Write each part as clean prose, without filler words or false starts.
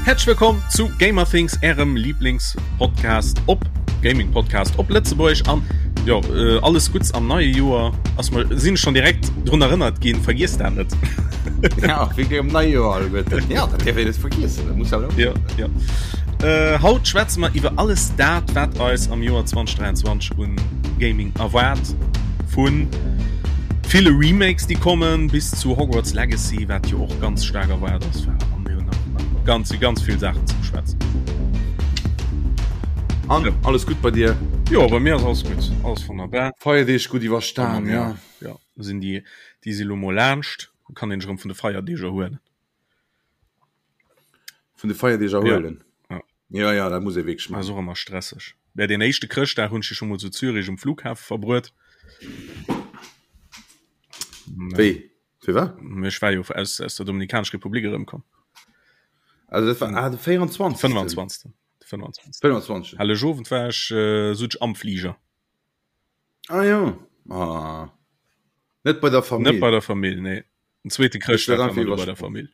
Häerzlech wëllkomm zu Gamerthings, ärem Lieblingspodcast op Gaming Podcast op Lëtzebuerg an jo äh, alles Gutts am neie Joer ass mer sinn schon direkt drun erënnert ginn, vergiess dat net. Ja, wéi am neie Joer alleguerten. Ja, dat dierf een net vergiessen, dat muss awer Ja, ja. Äh, haut schwätze mer iwwer alles dat, wat eis am Joer 2023 un Gaming erwaart. Vun ville Remakes, déi kommen, bis zu Hogwarts Legacy, wat jo och ganz staark erwaart ass. An mir hunn nach ganz, ganz vill Saachen ze beschwätzen. An ja. alles gutt bei dir? Jo, bei mir ass alles gutt, alles wonnerbar. Feierdeeg gutt iwwerstan, ja. Ja, sinn déi, déi si lo mol laanscht, kann een sech erëm vun de Feierdeeg erhuelen. Vun de Feierdeeg erhuelen? Ja. Ja, ja, dat muss ee wierklech maachen. Ass och ëmmer stresseg. Mä deen éischte Chrëschtdag hunn ech jo scho mol zu Zürich um Flughafe verbruet. Wéi? Firwat? Ech war jo aus, aus der Dominikanesch Republik erëmkomm. Also dat war ah, de 24. 25. 25. 25. Helleg Owend war ech äh, sot ech am Flieger. Ah ja. Ah. Net bei der Famill. Net bei der Famill, nee. Den zweete Chrëschtdag war bei der Famill.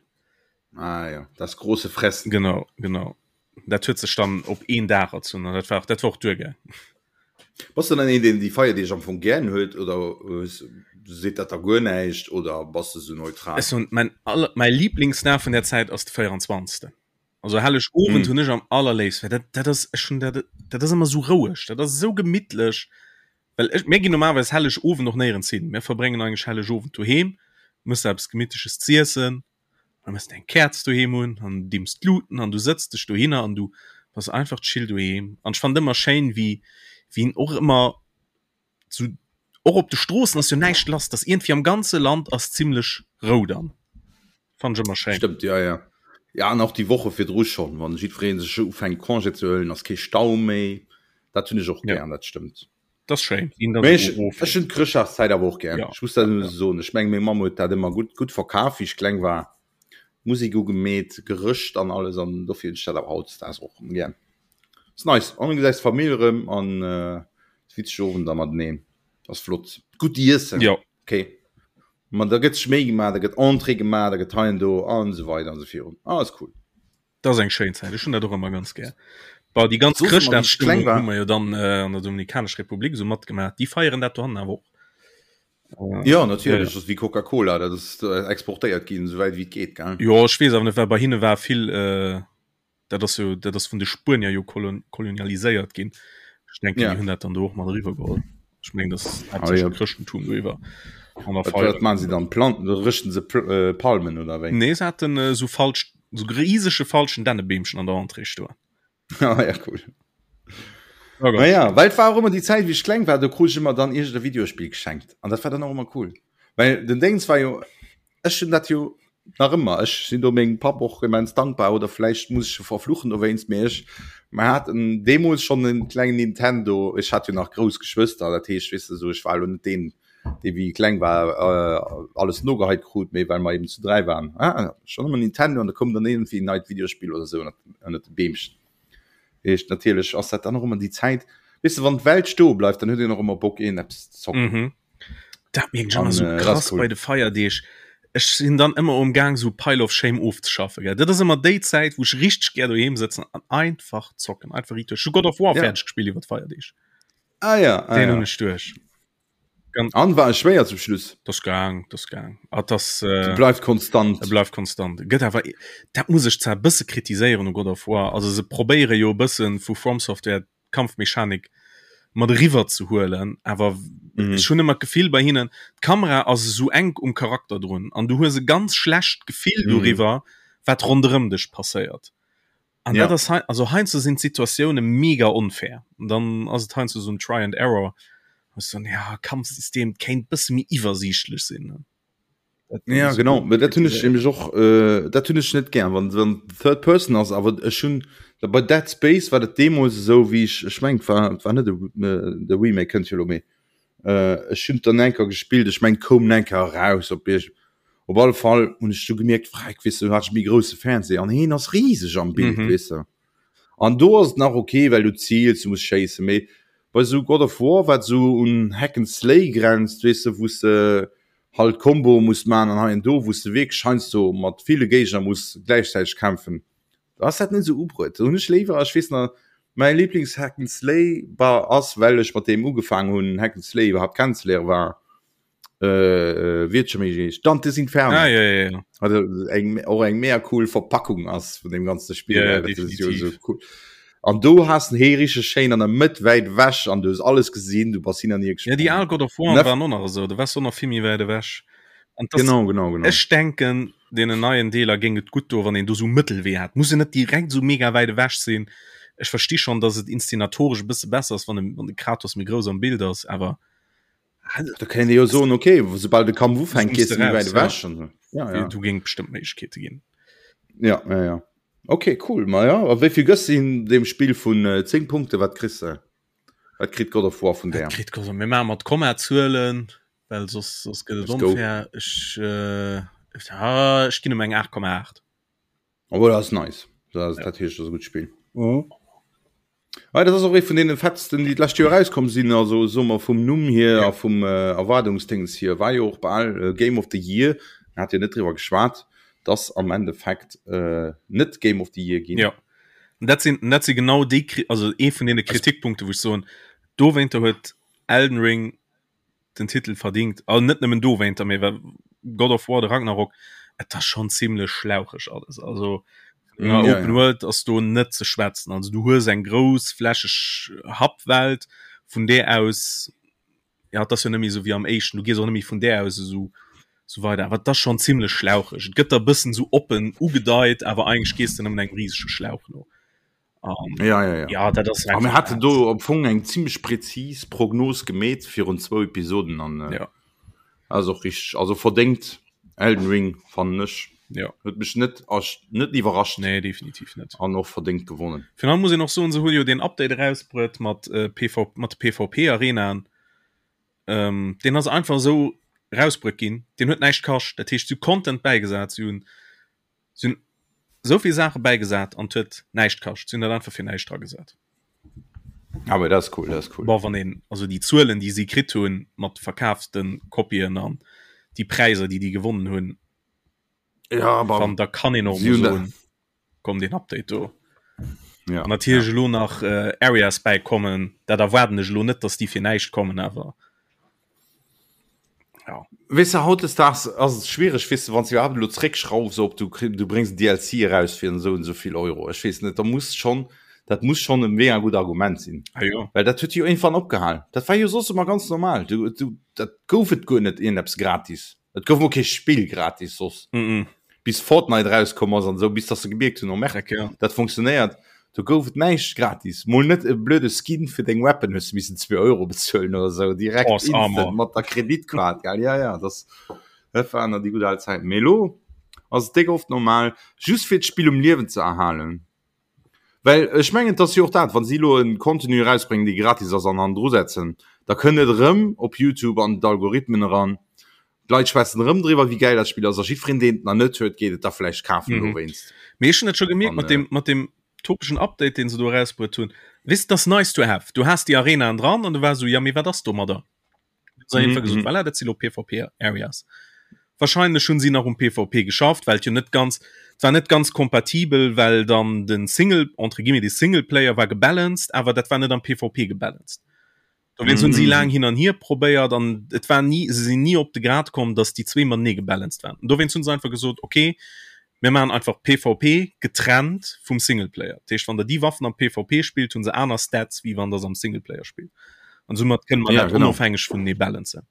Ah ja, das große Fressen. Genau, genau. Dat huet sech dann op een Dag erzunn an dat war, dat war och duergaang. Bass du dann een, deen déi Feierdeeg am Fong gären huet oder seet dat der guer näischt oder bass de sou neutral? Ech soen, mäin aller, mäi Lieblingsdag vun där Zäit ass de 24. Also Helleg Owend hunn ech am allerléifsten, well dat, dat ass, ech hunn dat, dat ass ëmmer sou roueg, dat ass esou gemittlech. Well ech, mir ginn normalerweis Helleg Owend och néierens hin. Mir verbréngen eigentlech Helleg Owend doheem, mëss der eppes Gemittleches z'iessen, da mëss de eng Käerz doheem un an dimms d'Luten an du sëtz dech dohinner an du bass einfach chill doheem. An ech fannen et ëmmer schéin, wéi, wéi en och ëmmer sou, och op de Stroossen ass jo näischt lass, dass iergendwéi am ganze Land ass zimlech Rou dann. Fannen ech ëmmer schéin. Stëmmt, jo, jo. Ja, an och déi Woche virdru schonn, wann jiddweree sech ufänkt Congé ze huelen, ass kee Stau méi. Dat hunn ech och gär, dat stëmmt. Dat ass schéin. Mee ech, ech hunn d'Chrëschtdagszäit awer och gär. Ech muss dat elo soen. Ech mengen, meng Mamm huet dat ëmmer gutt, gutt verkaf, wéi ech kleng war. Musek ugemeet, gerëscht an alles an dofir hunn ech dat awer hautdesdaags och erëm gär. Ass nice. An du gesäis d'Famill erëm an witzeg Owender mateneen. Ass flott. Gutt iessen. Jo. Okay. Ma da gëtt sech Méi gemaach, da gëtt Entrée gemaach, da gëtt hei an do an esou weider an esou virun. Ah, ass cool. Dat ass eng schéin Zäit. Ech hunn dat och ëmmer ganz gär. Bah, déi ganz Chrëschtdagsstëmmung hu mer jo dann äh, an der Dominikanesch Republik esou matgemaach. Déi feieren dat dohannen awer och. Äh, ja, natierlech. Ja. Dat ass wéi Coca-Cola, dat ass äh, exportéiert ginn, esouwäit wéi et geet, gell? Jo, ech weess awer net, well bei hinne war vill. Äh, dat ass jo dat ass vun de Spuenier jo kolon kolonialiséiert ginn. Ech denken ja. hunn dat dann do och mat eriwwer geholl. Ech meng das ah, ja. Chrëschtentum do iwwer. Wat man se dann Planten rëchten se äh, Palmen oder wéi? Nee se haten äh, so falsch so riesege falschen Dännebeemchen an der Entrée stoen. ah, ja, cool. Oh ja, well war och ëmmer déi Zäit wéi ech kleng war, do krut ech ëmmer dann iergend e Videospill geschenkt an dat war dann och ëmmer cool. Well den Déngs war jo ech hunn dat jo nach ëmmer, ech sinn do mengem Papp och immens dankbar oder vläicht muss ech e verfluchen dowéinst, mee ech mer haten deemools schonn en klengen Nintendo, ech hat jo nach grouss Geschwëster, dat heescht weess de esou, ech war elo net deen, dee wéi e kleng war alles nogeheit krut, mee well mer eben zu 3 waren, ah schonn ëmmer Nintendo an da koum dann iergendwéi en neit Videospill oder esou ënnert de Beemchen. Heescht natierlech ass dat dann och ëmmer déi Zäit, weess de, wann d'Welt stoe bleift, dann huet een och ëmmer Bock een eppes ze zocken. Mhm. Dat mierken ech ëmmer sou äh, krass cool. bei de Feierdeeg. Ech sinn dann ëmmer um Gaang sou Pile of Shame ofzeschaffen. Gell? Dat ass ëmmer déi Zäit, wou ech richteg gär doheem sëtzen an einfach zocken, einfach riit duerch. Ech hu God of War ja. fäerdeg gespillt iwwer d'Feierdeeg. Ah ja, ah, Den ja. hunn ech duerch. Ganz An war e schwéier zum Schluss? Das gaang, das gaang. Ah, das, äh, bleift konstant. E bleift konstant. Gëtt awer dat muss ech zwar bësse kritiséieren u God of War. Also se probéiere jo e bëssen vu From Software d'Kampfmechanik mat eriwwer ze huelen, awer mhm. ech hunn ëmmer d'Gefill bei hinnen, d'Kamera ass esou enk um Charakter drun an du hues e ganz schlecht Gefill mhm. doriwwer, wat ronderëm dech passéiert. An ja. dat ass also heiansdo sinn d'Situatioune mega onfair. An dann ass et heiansdo so en Try and Error. So, ja, Kampfsystem kéint bësse méi iwwersiichtlech sinn. Ja genau dat hunn ech nämlech och äh, dat hunn ech net gär wann wann Third Person ass awer ech hunn da bei Dead Space war dat deemools esou wéi ech ech meng war war net de Remake kënnt jo lo méi äh, ech hunn dann enker gespillt ech meng koum enker eraus op Iech op alle Fall hunn ech du gemierkt freck weess du hat ech méi grousse Fernseh an heen ass riseg am Bild mhm. weess de an do ass et nach okay well du ziels du muss schéisse méi bei sou God of War wat sou un Hack and Slay grenzt weess de wou s de halt Comboe muss man an hei an do wous de wierklech heiansdo mat ville Géigner muss gläichzäiteg kämpfen. Da ass dat net esou ubruet. Do hunn ech léiwer, ech weess nach, mäi Lieblings-Hack and Slay war, ass, well ech mat deem ugefaangen hunn, Hack and Slay iwwerhaapt kennenzeléieren, war äh, wéi huet scho méi geheescht? Dante's Inferno. Ah, ja, ja, ja. Also eng, och eng mega cool Verpackung ass vun dem ganze Spiel. Ja, ja, dat ist jo definitiv. so cool. An do hast den hee richtig schéin an der Mëtt wäit ewech an du hues alles gesinn, du bass hin an hier Ja, déi gesprongen. al God of War Nef waren och nach esou, do waars du och nach vill méi wäit ewech. An das, Genau, genau, genau. ech denken, deenen neien Deeler géing et gutt do, wann een do sou Mëttelwee hat. Muss en net direkt sou mega wäit ewech sinn. Ech versti schonn, dass et inszenatoresch e bësse besser ass, wann de, wann de Kratos méi grouss am Bild ass, awer Da kéint ee jo soen, okay, soubal de Kampf ufänkt, Zooms gees de du méi raus, wäit ja. ewech an esou. Ja, ja. Do géing et bestëmmt Méiglechkeete ginn. Ja, ja, ja. Okay, cool. Ma ja, a wéi vill gëss de deem Spill vun 10 Punkte? Wat kriss de? Wat kritt God of War vun Wat där? kritt God of Mir maache mat Kommazuelen, well soss, soss gëtt et Let's go. onfair. Ech, äh, ah, ech ginn em eng 8,8. Obwohl, dat ass nice. Dat ass, dat heescht, dat ass e gutt Spill. Mhm. Ah, dat ass och ee vun deene fettsten, déi d'lescht Joer erauskomm sinn. Also soe mer vum Numm hier Ja. a vum äh, Erwaardungsdéngs hier war jo och bal äh, Game of the Year. Mir hat jo net driwwer geschwat, dass am Endeffekt äh, net Game of the Year ginn. Ja. Und dat sinn, dat si genau déi, Kri- also ee vun deene Kritikpunkte, wou ech soen, dowéinter huet Elden Ring den Titel verdingt. Also net nëmmen dowéinter, mee well God of War, de Ragnarok, et ass schonn zimlech schlaucheg alles. Also Mm, ja, ja, Open ja. World ass do net ze schwätzen. Also du hues eng grouss flächeg Happwelt, vun där aus, ja, et ass jo net méi esou wéi am éischten, du gees och net méi vun där aus esou sou weider. Awer et ass schonn zimlech schlaucheg. Et gëtt der e bëssen esou oppen ugedeit, awer eigentlech gees de nëmmen engem risege Schlauch no. Um, Ja, ja, ja. ja, dat ass A mir einfach haten dat. do am Fong eng ziemlech präzis Prognos gemeet virun zwou Episoden an äh, Ja, ass och richtig, also verdéngt Elden Ring fannen ech. ja. Huet mech net ersch- net iwwerrascht Nee, definitiv net. an och verdéngt gewonnen. Virun allem muss een och soen, se hu jo deen Update erausbruet mat äh, PV mat de PvP-Arenaen. Ähm, deen ass einfach esou rausbruet ginn. Deen huet näischt kascht. Dat heescht, si hu Content bäigesat, si hunn Si hunn esou vill Saache bäigesat an et huet näischt kascht. Si hunn dat einfach fir näischt dragesat. Awer dat ass cool, dat ass cool. Bon, wann een also déi Zuelen, déi si kritt hunn mat verkaafte Kopien an déi Präiser, déi déi gewonnen hunn, Ja, aber wann da kann een och si emol hunn da soen, komm deen Update do. Ja, An natierlech ja. elo nach äh, Areas bäikommen, dat erwaarden ech elo net, datt déi fir näischt kommen, awer Ja. Weess de, hautdesdaags ass et schwiereg, weess de, wann s de iwwerhaapt elo zréckschraufs op, du kri-, du bréngs en DLC eraus fir esou an esou vill Euro. Ech weess net, da muss schonn, dat muss schonn e mega gutt Argument sinn. Ah jo. Well dat huet jo iergendwann opgehal. Dat war jo soss ëmmer ganz normal. Du, du, dat gouf et guer net iergendeppes gratis. Et gouf mol kee Spill gratis soss. Mm -mm. Bis Fortnite erauskomm ass an esou, bis dass se gemierkt hunn, oh merde, Dreck, ja. dat funktionéiert. Do gouf et näischt gratis. Mol net e blöde Skin fir deng Weapon hues du missen 2 Euro bezuelen oder sou, direkt Horse instant Armor. mat der Kreditkaart, gell. Ja, ja, das, dat waren nach déi gutt al Zäiten. Mee elo ass et déck oft normal, just fir d'Spill um Liewen ze erhalen. Well ech mengen, et ass jo och dat, wa si elo e Contenu erausbréngen, dee gratis ass an hannendru setzen, da kënnt et erëm op YouTube an d'Algorithmen eran. D'Leit schwätzen erëm driwwer, wéi gäil dat Spill ass a jiddwereen, deen et nach net huet, geet et da vläicht kafen dowéinst. Mee ech hunn dat scho gemierkt An, mat deem, mat deem topeschen Update, deen se do erausbruet hunn. Weess de, dat ass nice to have. Du has déi Arenaen dran an du waars esou, jo, mee wat ass domadder? Hunn se einfach gesot, voilà, dat si lo PvP-Areas. Wahrscheinlech hunn si nach um PvP geschafft, well et jo net ganz, et war net ganz kompatibel, well dann de Single, entre guillemets, de Singleplayer war gebalanced, awer dat war net am PvP gebalanced. Dowéinst hunn si laang hin an hier probéiert an et war ni, se sinn ni op de Grad komm, datt déi zwee matenee gebalanced waren. An dowéinst hunn se einfach gesot, okay, mir maachen einfach PvP getrennt vum Singleplayer. Dat heescht, wann der déi Waffen am PvP spillt, hunn se aner Stats, wéi wann der se am Singleplayer spillt. An soumat kënne mer Ja, dat genau. onofhängeg vunenee balancen.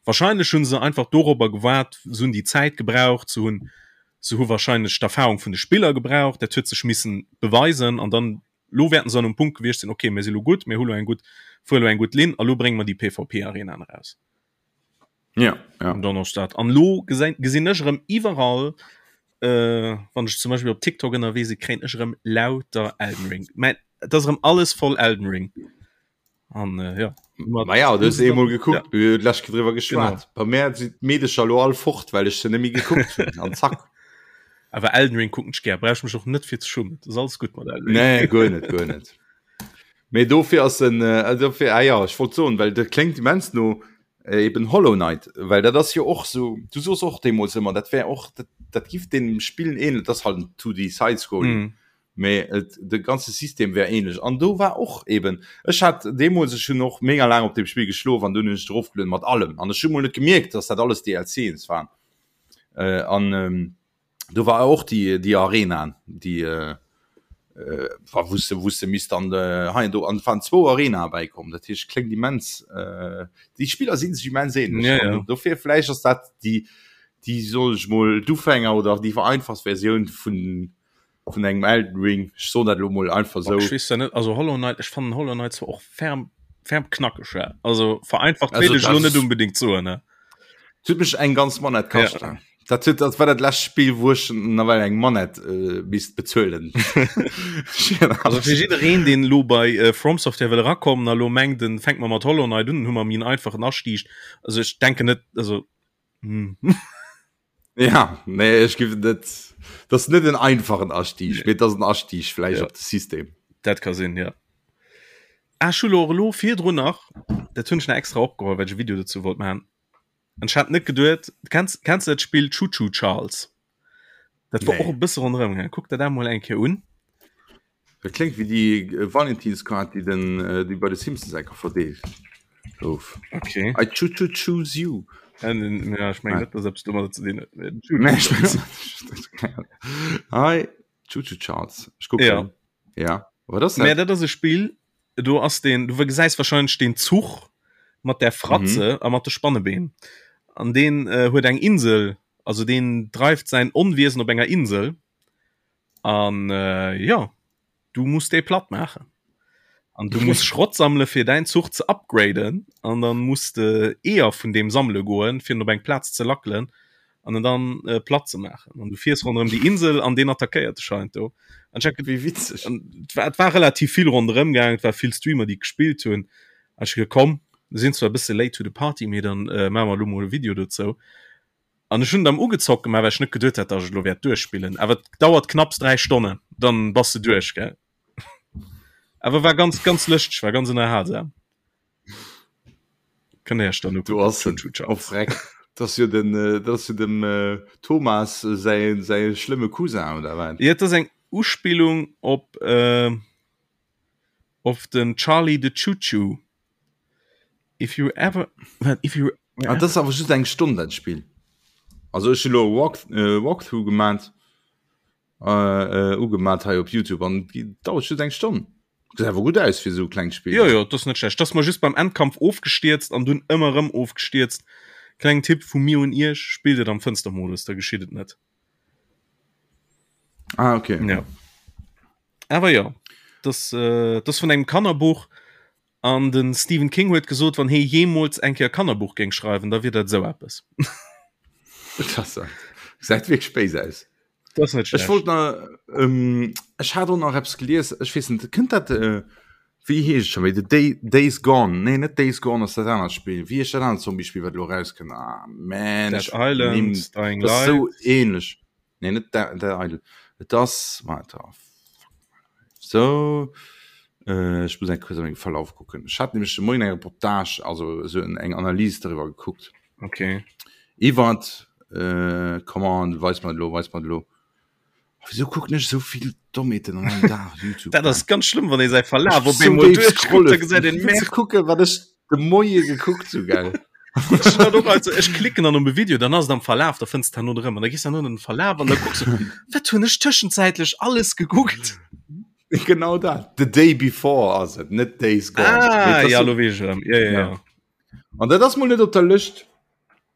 Wahrscheinlech hunn se einfach dorobber gewaart, se hunn déi Zäit gebraucht, se hunn, se hu wahrscheinlech d'Erfahrung vun de Spiller gebraucht, dat huet sech missen beweisen an dann Lo wäerten se an um Punkt gewiescht sinn, okay, mir si lo gutt, mir hu lo eng gutt, fuere lo eng gutt Linn a lo brénge mer déi PvP-Arenaen eraus. Ja, ja. An dann ass dat. An lo gesinn, gesinn ech erëm iwwerall, äh, wann ech zum Beispill op TikTok ënnerwee sinn, kréien ech erëm lauter Elden Ring. Mä et ass erëm alles voll Elden Ring. An äh, ja. Ma ja, du hues eemol gekuckt, Ja. mir hunn d'lescht Kéier driwwer geschwat. Genau. Bei mär sinn d'Meedecher elo all fort, well ech se net méi gekuckt hunn. An zack. Awer Elden Ring kucken ech gär, brauch ech mech och net fir ze schummen. Dat ass alles gutt mat Elden Ring. Nee, guer net, guer net. Mee dofir ass en, äh, dofir, ah ja, ech wollt soen, well dat kléngt immens no äh, eben Hollow Knight, well dat ass jo och sou, du soos och deemools ëmmer, dat wär och, dat, dat giff deem Spillen ähneln, dat ass halt en 2D Side-Scrolling. Mhm. Mee et, de ganze System wär ähnlech. An do war och eben, ech hat deemools, ech hunn och mega laang op deem Spill geschlof an dunn hunn ech et erofgelueden mat allem an ech hu mol net gemierkt, dass dat alles DLCs waren. Äh, an ähm, do war och déi, déi Arenaen, déi äh, äh, war wou s de, wou s de misst dann äh, hei an do, an et waren zwou Arenae bäikomm. Dat heescht, kléngt immens, äh, déi Spiller si sech immens ähnlech. Ja, ja. An dofir vläicht ass dat déi, déi, soll ech mol, d'Ufänger oder déi vereinfacht Versioun vun vun engem Elden Ring. Ech soen dat elo mol einfach sou. Ech weess zwar net, also Hollow Knight, ech fannen Hollow Knight zwar och ferm, ferm knackeg, ja. Also vereinfacht Also wéilt ech elo dat net unbedingt soen, ne. Et huet mech eng ganz Manette kascht. Ja. Dat huet, dat war dat lescht Spill, wou ech nawell eng Manette äh, misst bezuelen. Also fir jiddereen, deen elo bei äh, From Software wëll erakommen a lo mengt, en fänkt mer mat Hollow Knight un, dann hu mer méi en einfachen Astieg. Also ech denken net, also hm. Ja, nee, ech gif net dat ass net en einfachen Astieg, mee et ass en Astieg vläicht Ja. op de System. Dat ka sinn, ja. Ah, ech hu lo och elo virdrun nach, dat hunn ech nach extra opgeholl, well ech e Video dozou wollt maachen. An ech hat net geduet, kenns, kenns du dat Spill Choo Choo Charles? Dat war Nee. och e bësse ronderëm gaangen. Kuck der dat mol eng Kéier un. Dat kléngt wéi déi Valentinskaart, déi den, déi bei de Simpsons enker verdeelt gouf. Okay. I choo choo choose you. Ja, ech mengen net, dass eppes domadder ze dinn huet. Nee, ech mengen I choo choo Charles. Ech kucken. Ja. Ja. Wat ass Mä dat? dat ass e Spill, do ass den, du gesäis wahrscheinlech den Zuch mat der Fratze a mat de Spannebeen. An deen huet eng Insel, also deen dreift säin Onwiesen op enger Insel. An äh, ja, du musst déi platt maachen. An du musst Schrott sammele fir däin Zuch ze upgraden an dann musst de Eeër vun deem sammele goen, fir en op eng Plaz ze lackelen an en dann äh, platt ze maachen. An du fiers ronderëm déi Insel an deen attackéiert dech heiansdo. An ech Wéi witzeg. An et war, et war relativ vill ronderëm gaangen, et war vill Streamer, déi gespillt hunn. An ech hu geduet, komm, mir sinn zwar e bësse late to the party, mee dann äh, maache mer elo mol e Video dozou. An ech hunn et am ugezockt gemaach, well ech net geduet hat, dass ech et elo wäert duerchspillen. Awer et dauert knapps 3 Stonnen, dann bass de duerch, gell. Awer war ganz, ganz lëschteg, war ganz ënnerhalsam. Kënnt Dir Iech dann Du ukucken. ass Choo Choo oh Charles. freck, dat ass jo den, dat ass jo dem Thomas säi, säi schlëmme Cousin, oder wat? Jo, et ass eng Uspillung op, op den Charlie the Choo Choo. If you ever, if you Ah, das awer just eng Stonn dat Spill. Also ech lo Walk, äh, Walkthrough gemat äh, äh, ugemat hei op YouTube an dauert just eng Stonn. Gesäit awer gutt aus fir esou e klengt Spill. Jo jo, dat ass net schlecht. Dat ass mer just beim Endkampf ofgestierzt an dunn ëmmer erëm ofgestierzt. Klengen Tipp vu mir un iech, spillt et am Fënstermodus, da geschitt et net. Ah, okay. Ja. Awer jo, dat, äh, dat ass vun engem Kannerbuch An de Stephen King huet gesot, wann hee jeemools eng Kéier e Kannerbuch géing schreiwen, da wier dat esou eppes. Gesäit wierklech béis aus. Dat ass net Ech wollt nach, ähm, ech hat och nach eppes gelies, ech weess net, kënnt dat, äh, wéi heescht et scho méi, The Day, Days Gone, nee net Days Gone ass dat anert Spill, wéi heescht dat anert Zombie-Spill, wat elo erauskënnt? Ah man, Dead ech Island, nimm, Dying dat ass esou Light. ähnlech. Nee, net Dead Island. Et ass, warte, oh, fuck my life. So, äh, ech muss eng kuerz a mengem Verlauf kucken. Ech hat nämlech de Moien eng Reportage, also esou eng Analys doriwwer gekuckt. Okay. Iwwert, äh, come on, weis mer et elo, weis mer et elo. Oh, wieso kucken ech esou vill Dommheeten an engem Dag YouTube? Dat ass ganz schlëmm, wann ee säi Verlaf op eemol duerchkuckt, da gesäit een, Merde. Kucke wat ech de Moie gekuckt hu, gell? Ech hat och also, ech klicken dann op e Video, dann ass et am Verlaf, da fënns de herno erëm an da gees du herno an den Verlaf an da kucks du, wat hunn ech tëschenzäitlech alles gekuckt? Genau dat. The Day Before ass et, net Days Gone. Ah, ja, lo weess ech erëm. Ja, ja, ja. An dat ass mol net op der Lëscht.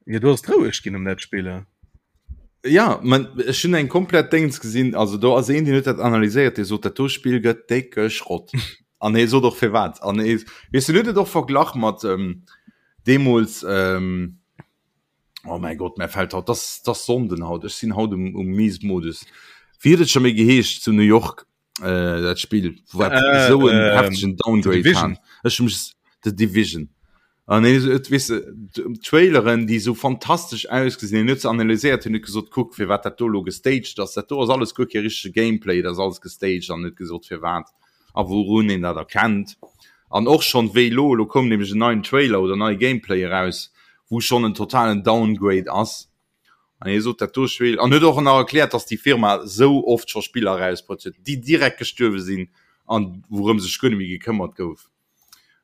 Ja, du ass roueg ginn um dat Spiller. Ja, man, ech hunn eng komplett Déngs gesinn, also do ass een, deen huet dat analyséiert, dee sot, dat do Spill gëtt décke Schrott. An hie sot och firwat. An hie, weess du, huet et och verglach mat ähm, deemools, ähm, oh mäi Gott, mär fält haut, das, das Sonnden haut, ech sinn haut um, um Miesmodus. Wéi huet et scho méi geheescht zu New York? äh, dat Spiel wat Äh, so en ähm, heftegen Downgrade Division. hat. Ech mech The Division. An nee, et weess de, d'Traileren, déi sou fantastesch ausgesinn hunn, huet se analyséiert, hunn huet gesot, kuck firwat dat do lo gestaged ass. Dat do ass alles guer kee richtege Gameplay, dat ass alles gestaged an huet gesot firwat a wourun een dat erkennt. An och schonn wéi lo, lo koum nämlech en neien Trailer oder neie Gameplay eraus, wou schonn en totalen Downgrade ass. An hie sot dat do Spill an huet och nach erkläert, dass déi Firma sou oft scho Spiller erausbruet huet, déi direkt gestuerwe sinn an wourëm sech guer net méi gekëmmert gouf.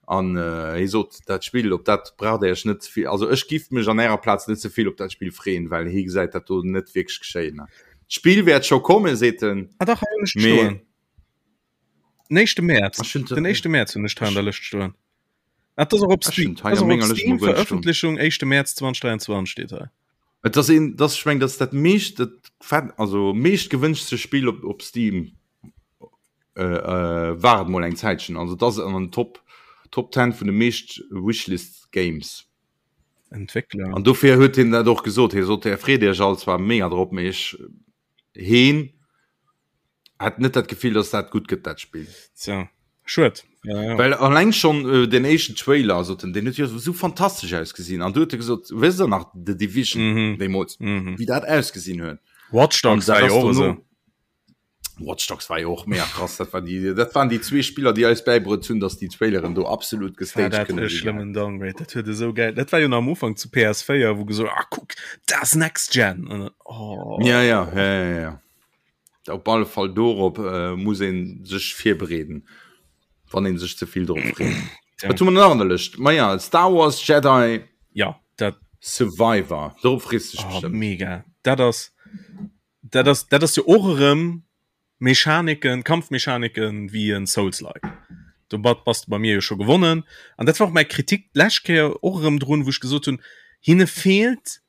An hie sot, dat Spill, op dat braucht Der Iech net ze vill, also ech giff mech an Ärer Plaz net ze vill op dat Spill freeën, well hie gesäit dat do net wierklech geschéien. D'Spill wäert scho kommen, seet en, Ah dach, hei hunn ech et mee. stoen. Den éischte Mäerz, Ech hunn den éischte Mäerz hunn ech et hei an der Lëscht stoen. Ah, das och op Steam, das och op Steam Veröffentlichung 1. März 2023 steet hei. Et ass een, das ech meng, dat dat meescht dat fett, also meescht gewënschtste Spill op, op Steam äh, äh, war et mol eng Zäitchen. Also dat ass an den Top Top 10 vun de meescht Wishlist Games. Entwéckler. An dofir huet hien dat och gesot. Hie sot, Är freet Iech all zwar mega drop, mee ech heen hat net dat Gefill, dass dat gutt gëtt dat Spill. Tja, schued. Ja, ja. Well alleng schon äh, den éischten Trailer also den, den huet jo so fantastesch ausgesinn an du huet gesot wëss der nach The Division Mhm. deemools Mhm. wéi dat ausgesinn huet. Watch Dogs An dat war jo ass och dono- esou. Watch Dogs war jo och mega krass dat war die dat waren déi zwee Spiller déi eis bäibruet hunn, dass déi Traileren do absolut War gestaged dat kënne e sinn. schlëmmen Downgrade. Dat huet esou geil. Dat war jo nach am Ufank zu PS4, wou gesot ah kuck, dat ass Next Gen. An dann, oh. Ja, ja, ja, ja, ja. Op alle Fall dorop äh, muss een sech virbereeden, wann een sech ze vill drop freet. Ja. Wat hu mer nach an der Lëscht? Ma ja, Star Wars Jedi Ja, dat Survivor. Dorop frees du dech oh, bestimmt. mega. Dat ass dat ass dat ass jo och erëm Mechaniken, Kampfmechaniken wéi en Souls-like. Domat bass de bei mir jo scho gewonnen. An dat war och mäi Kritik d'lescht Kéier och erëm drun, wou ech gesot hunn, hinne feelt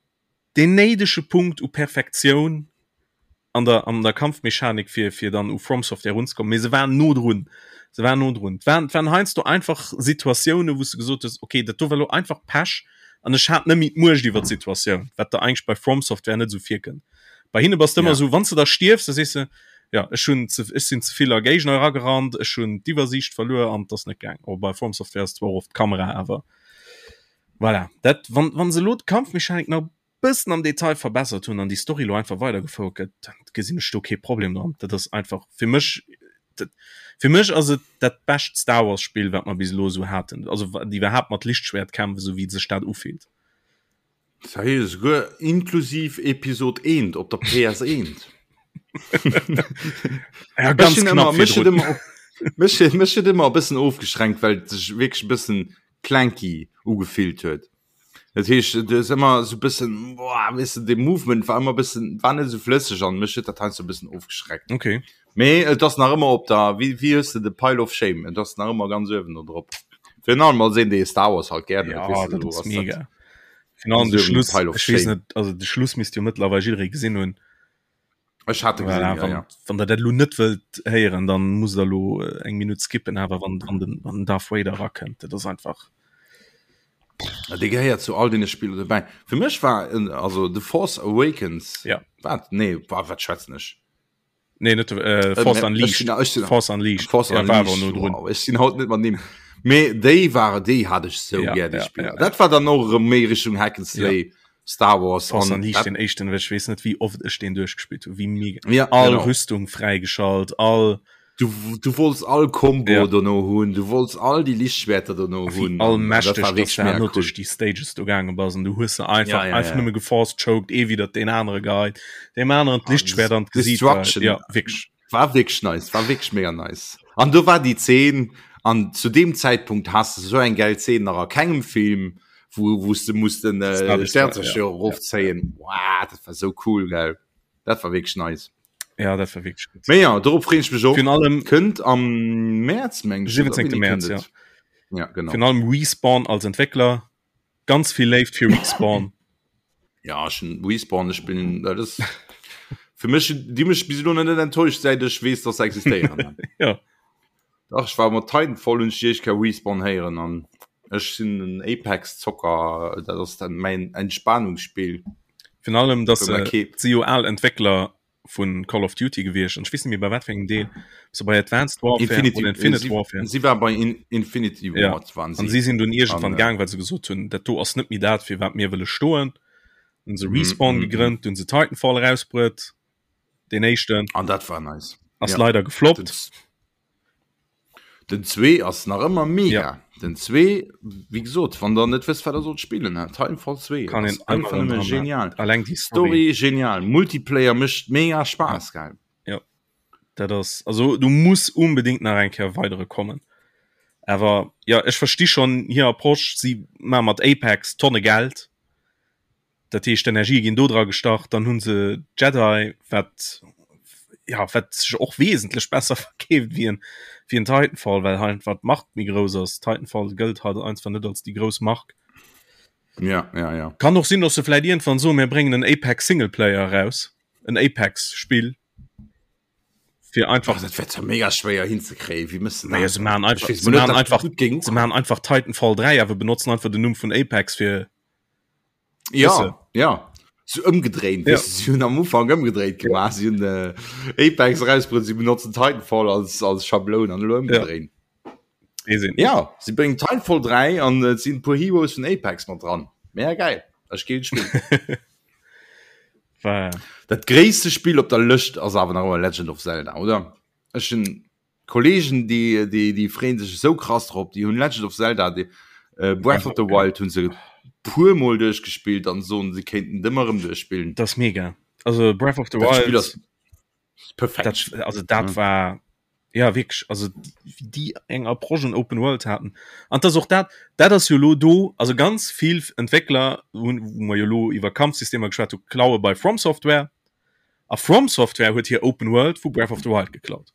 deen néidege Punkt u Perfektioun an der, an der Kampfmechanik, fir, fir dann u FromSoftware erunzekommen. Mee se waren no drun. Se waren no drun. Et waren, et waren heiansdo einfach Situatiounen, wou s de gesot hues, okay, dat do war elo einfach Pech an ech hat net méi d'Muecht iwwer d'Situatioun, wat der eigentlech bei FromSoftware net esou virkënnt. Bei hinne bass de ëmmer Ja. esou, wann s de da stierfs, da sees de, ja, ech hunn ze, ech sinn ze vill a Géigner eragerannt, ech hunn d'Iwwersiicht verluer an et ass net gaang. Oh, bei FromSoftware ass zwar och oft d'Kamera, awer Voilà, dat, wann, wann se elo d'Kampfmechanik nach e bëssen am Detail verbessert hunn an déi Story elo einfach weidergefouert gëtt, dann gesinn ech do kee Problem dran. Dat ass einfach fir mech, dat, fir mech ass et dat bescht Star Wars Spill, wat mer bis elo esou haten, also wat iwwerhaapt mat Lichtschwert-Kämpf, esou wéi sech dat ufillt. Sahi, esouguer inklusiv Episod 1 op der PS1. Ja, ganz knapp virdrun. Mech huet ëmmer e bëssen ofgeschränkt, well et sech wierklech e bëssen clunky ugefillt huet. Dat heescht, et ass ëmmer esou e bëssen, boah, weess de, de Movement war ëmmer e bëssen, war net esou flësseg an mech huet dat heiansdo e bëssen ofgeschreckt. Okay. Mee et ass nach ëmmer op der, wéi, wéi hues de, de Pile of Shame, et ass nach ëmmer ganz uewen do drop. Virun allem als een, dee Star Wars halt gären huet, Ja, weess de, dat do ass ass dat mega. Virun allem de ganz uewen Schluss, Pile of ech weess Shame. net, also de Schluss misst jo mëttlerweil jidderee gesinn hunn. Ech hat e gesinn, Voilà, ja, wann, ja. wann der dat elo net wëllt héieren, dann musst der elo äh, eng Minutt skippen, awer wann, wann den, wann den Darth Vader erakënnt, dat ass einfach. Ja, Dee gehéiert zu all deene Spiller dobäi. Fir mech war en, also The Force Awakens, Ja. wat? Nee, wa, wat schwätzen ech? Nee, net äh, Force Unleashed. Force Unleashed. Force ja, war Unleashed. awer no drun. Wow, ech sinn haut net mat Nimm. Mee déi war déi hat ech sou Ja, gär déi ja, Spiller. ja, ja. Dat war dann och erëm méi Richtung Hack and Slay, Star Wars Force an Unleashed, dat, den éischten, ech weess net wéi oft ech deen duerchgespillt hunn, wéi mega. ja, All genau. Rüstung fräigeschalt, all Du, du wollts all Combo Ja. dono hunn, du wollts all déi Lichtschwerter dono wéi hunn. all an dat mächteg war dass wierklech du mega herno cool. duerch déi Stages do gaange bass an du hues se einfach Ja, ja, einfach ja. nëmme geforce-choked, ee widder deen anere geheit, deem aneren d'Lichtschwert an d'Gesiit geheit. Destruction. Ja, wierklech. War wierklech nice, war wierklech mega nice. An do war déi Zeen, an zu deem Zäitpunkt has de sou eng gäil Zeen nach a kengem Film, wou wou s de muss den äh, Sternzerstörer ja. erofzéien. Wow, dat war sou cool, gell. Dat war wierklech nice. Ja, dat war wierklech gutt. Mee ja, dorop freen ech mech och. Virun allem Kënnt am Mäerz, meng ech. 17. Mäerz, ja. Ja, genau. Virun allem Respawn als Entwéckler. Ganz vill Léift fir Respawn. Ja, ech hunn Respawn, ech bin, dat ass fir mech, déi hu mech bis elo nach net enttäuscht, säit ech weess, dass se existéieren. Ja. Dach, ech war mat Titanfall hunn ech déi éischt Kéier Respawn héieren an ech sinn en Apex-Zocker, dat ass dann mäin Entspanungsspill. Virun allem, dass Wou se mer kee. si jo al Entwéckler vu Call of Duty gewiescht an ech weess net méi bei wat fir engem Deel, ob se bei Advanced Warfare Infinity, oder Infinite si, Warfare. si war bei In, Infinity Ja. Ward waren An si. si sinn dunn iergendwann An, äh, gaang, well se gesot hunn, dat do ass net méi dat, fir wat mir wëlle stoen. Hunn se mm, Respawn mm, mm. gegrënnt, hunn se Titanfall erausbruet, deen éischten An dat war nice. ass Ja. leider Den, gefloppt. den zwee ass nach ëmmer Ja. mega. Den 2 wéi gesot, wann der net wësst wat der sollt spillen, he, Titanfall 2 Kann ass een einfach ëmmer nëmme dran genial. Alleng déi Story genial, Multiplayer mécht mega Spaass, gell? Ja. Dat ass also du muss unbedingt nach eng Kéier weidere kommen. Awer ja ech versti schon hir Approche, si ma mat Apex Tonne Geld. Dat heescht d'Energie ginn do dra gestach, dann hunn se Jedi wat ja wat sech och wesentlech besser verkeeft wéi en wéi en Titanfall, well hei einfach d'Mark méi grouss ass. Titanfall gëllt halt einfach net als déi grouss Mark. Ja, ja, ja. Kann och sinn, dass se vläit iergendwann soen, mir bréngen en Apex Singleplayer eraus, en Apex Spill fir einfach Ach, dat wär zwar mega schwéier hinzekréien, wéi mëss de Naja, dat? se maachen Ech einfach, weess se mol net, maachen dat einfach, gutt géing se ukommen. maachen einfach Titanfall 3, awer benotzen einfach den Numm vun Apex fir Ja, Weißt du? ja. So ëmgedréint, Ja. weißt du, sie hunn am Ufank ëmgedréint gemaach. Sie hunn äh, Apex rausbruet, sie benotzen Titanfall als, als Schabloun an elo ëmgedréint. Nee, sinn. Ja, sie bréngen Titanfall 3 an et sinn e puer Heroes vun Apex mat dran. Mega geil. Ech géing spillen. War, Dat gréisste Spill op der Lëscht ass awer nach ëmmer Legend of Zelda, oder? Ech hunn Kollegen déi déi déi freeën sech esou krass drop, déi hunn Legend of Zelda déi äh, Breath of the Wild hunn se puer mol duerchgespillt an soen se kéinten et ëmmer erëm duerchspillen. Dat ass mega. Also Breath of the Dat Spill Wild ass perfekt. dat, also dat Ja. war ja wierklech also wéi déi eng Approche un Open World haten. An dat ass och dat dat ass jo lo do also ganz vill Entwéckler hunn wou mer jo lo iwwer Kampfsystemer geschwat hu klaue bei From Software a From Software huet hir Open World vu Breath of the Wild geklaut.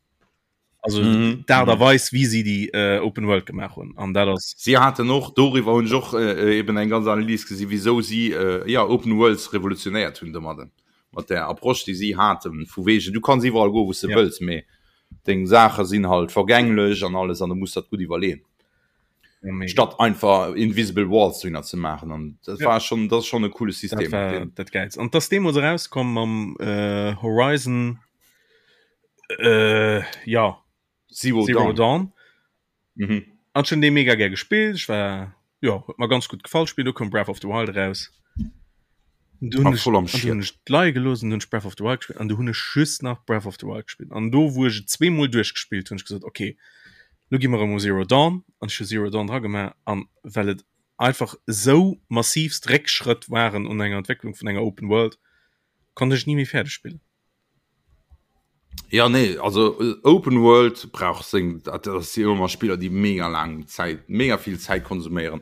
Also Mhm. d'Aart a Mhm. Weis wéi si déi äh, Open World gemaach hunn an dat ass Si haten och doriwwer hunn ech och äh, eben eng ganz Analys gesi wisou si äh, ja Open Worlds revolutionéiert hunn domadden mat der Approche déi si haten vu wegen du kanns iwwerall goen wou s de Ja. wëlls mee deng Saache sinn halt vergänglech an alles an du muss dat gutt iwwerleeën. ja, mega. statt einfach invisible Walls dohinner ze maachen an dat Ja. war schon dat ass schon e coole Dat System war deen dat Gäilst. An dass deemools erauskomm mam äh, Horizon äh, ja Zero, Zero Dawn. Dawn. Mhm. An ech hunn dee mega gär gespillt. Ech war ja huet mer ganz gutt gefall Spill. Du koum Breath of the Wild eraus. Du hunn War ech voll am an du hunn Schiet. ech d'Lei gelooss an du hunn ech Breath of the Wild gespillt an du hunn ech just nach Breath of the Wild gespillt. An do wou ech et zweemol duerchgespillt hunn, ech gesot okay, lo gi mer erëm u Zero Dawn an ech hu Zero Dawn dra gemaach an well et einfach esou massivst Réckschrëtt waren un enger Entwécklung vun enger Open World, konnt ech et ni méi fäerdeg spillen. Ja nee, also äh, Open World brauch seng dat ass si ëmmer Spiller, déi mega laang Zäit, mega vill Zäit konsuméieren.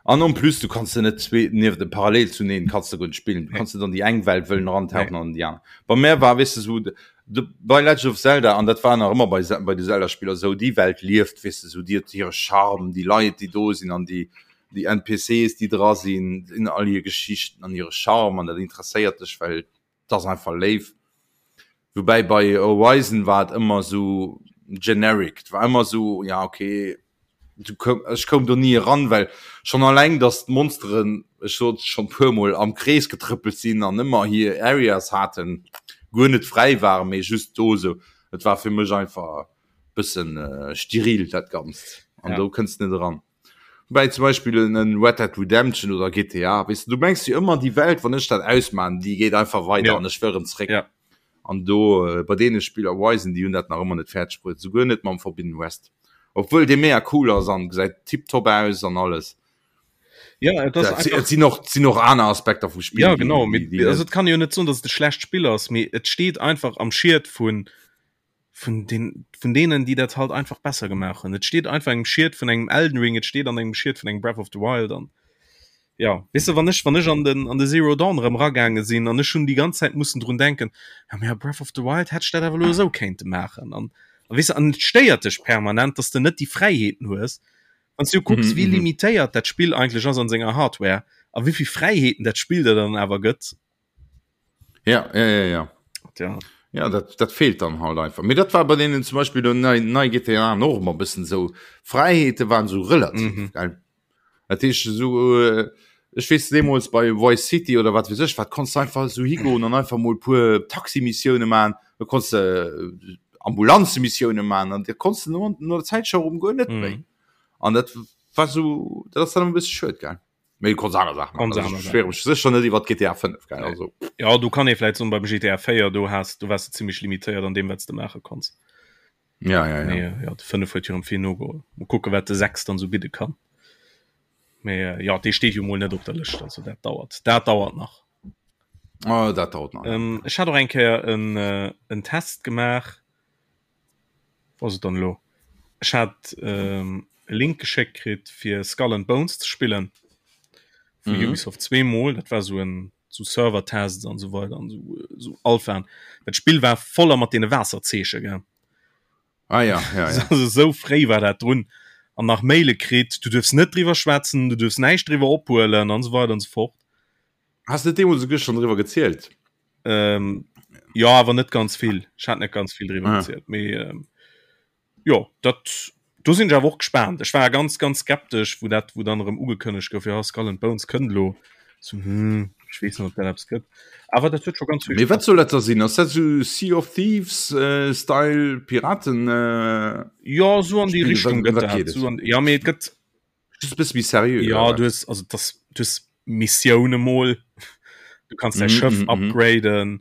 An en plus du kanns de net zwee nieft de parallel zuneen kanns de guer net spillen. Du Nee. kanns net an déi eng Welt wëllen erantauchen Nee. an déi aner. Bei mär war weess de sou de, bei Legend of Zelda an dat war nach ëmmer bei bei de Zelda-Spiller sou, déi Welt lieft weess de sou, déi huet hire Charme, déi Leit déi do sinn an déi déi NPCs déi dra sinn, sinn all hir Geschichten an hire Charme an dat interesséiert dech well 't ass einfach léif. Woubäi bei Horizon war et ëmmer sou generic, 't war ëmmer sou, ja okay, du koum, ech koum do ni eran, well schonn alleng, datt d'Monsteren, ech sot et schonn puer mol, am Krees getrëppelt sinn an ëmmer hir Areas haten, guer net fräi waren, mee just do sou. Et war fir mech einfach bëssen steril dat Ganzt an Ja. do kënns de net eran. Wobäi zum Beispill en Red Dead Redemption oder GTA, weess de, du mengs jo ëmmer déi Welt, wann ech dat ausmaan, déi geet einfach weider Ja. an ech wëll erëm zréck. Ja. An do bei deene Spiller, Horizon, déi hunn dat nach ëmmer net fäerdeg bruet, souguer net mam Forbidden West, obwuel dee mega cool ass an gesäit tiptop aus an alles. Ja, et ass Dat si, einfach et sinn och, sinn och aner Aspekter vum Spill, Ja, déi, genau, déi, mee déi also net et kann jo net soen, datt et e schlecht Spill ass, mee et steet einfach am Schiet vun vun den vun denen déi dat halt einfach besser gemaach hunn. Et steet einfach engem Schiet vun engem Elden Ring, et steet an engem Schiet vun engem Breath of the Wild an ja weess de wann ech wann ech an den an de Zero Dawn erëm ragaange sinn an ech hunn déi ganz Zäit mussen drun denken, ja mee a Breath of the Wild hätt ech dat awer elo esou kéinte maachen an a weess de an et stéiert dech permanent, dass de net déi Fräiheeten hues. Wann s du kucks Mhm, wéi mhm. limitéiert dat Spill eigentlech ass an senger Hardware a wéi vill Fräiheeten dat Spill der dann awer gëtt. Ja, ja, ja, ja. Tja. Ja, dat, dat fehlt dann halt einfach. Mee dat war bei denen zum Beispiel do nei, nei GTA och ëmmer bëssen sou. Fräiheete waren sou relativ, Mhm. gell? Dat heescht sou, äh, ech weess deemools bei Vice City oder wat weess ech wat, konntst du einfach sou higoen an einfach mol puer Taximissioune man, da konntst de äh, Ambulanzemissioune man an da konntst du no, no der Zäit scho rëm guer net méi. Mhm. An dat war sou, dat ass dann e bësse schued, gell? Mee du konns aner Saachen Konns maachen. Also aner ech Saachen. beschwéiere mech sécher net iwwer GTA 5, gell? Nee. Also. Ja, do kann ee vläit soen, beim GTA 4, do has, do waars de zimmlech limitéiert an deem, wat s de maache konns. Ja, ja, ja. Mee, ja, de 5 huet jo erëm vill nogeholl. Mol kucke wat de 6 dann sou bidde kann. Mee äh, ja, dee steet jo mol net op der Lëscht, also dat dauert. Dat dauert nach. Oh, dat dauert nach. Ähm, ech hat och eng Kéier en, äh, en Test gemaach. Wou ass et dann elo? Ech hat ähm, e Link geschéckt kritt fir Skull and Bones ze spillen. Vu mhm. Ubisoft zweemol. Dat war so en so Server-Tests an so weiter an so, so Alpha. Dat Spill war voller mat deene Waasserzeeche gell. Ah, ja, ja, ja. Also, so fréi war dat drun an nach Maile kritt, du duerfs net driwwer schwätzen, du duerfs näischt driwwer ophuelen an so weiter an so fort. Hast du deemools souguer schon driwwer gezielt? Ähm, ja, awer net ganz vill. Ech hat net ganz vill driwwer ah. gezielt. Mee, ähm, jo, dat, do sinn ech awer och gespaant. Ech war ganz, ganz skeptesch, wou dat, wou dann erëm ugekënnegt gouf, ja, Skull and Bones kënnt elo. So, hm, ech weess net, ob dat eppes gëtt. Awer dat huet scho ganz vill Mee wat soll dat da sinn? Ass dat sou Sea of Thieves äh, Style Piraten? Äh, Ja, so an déi Richtung gëtt dat. So an, ja, mee et gëtt Just bësse méi seriö. Ja, du hues also das du hues Missioune mol. Du kannst däi mm, Schëff mm, mm. upgraden.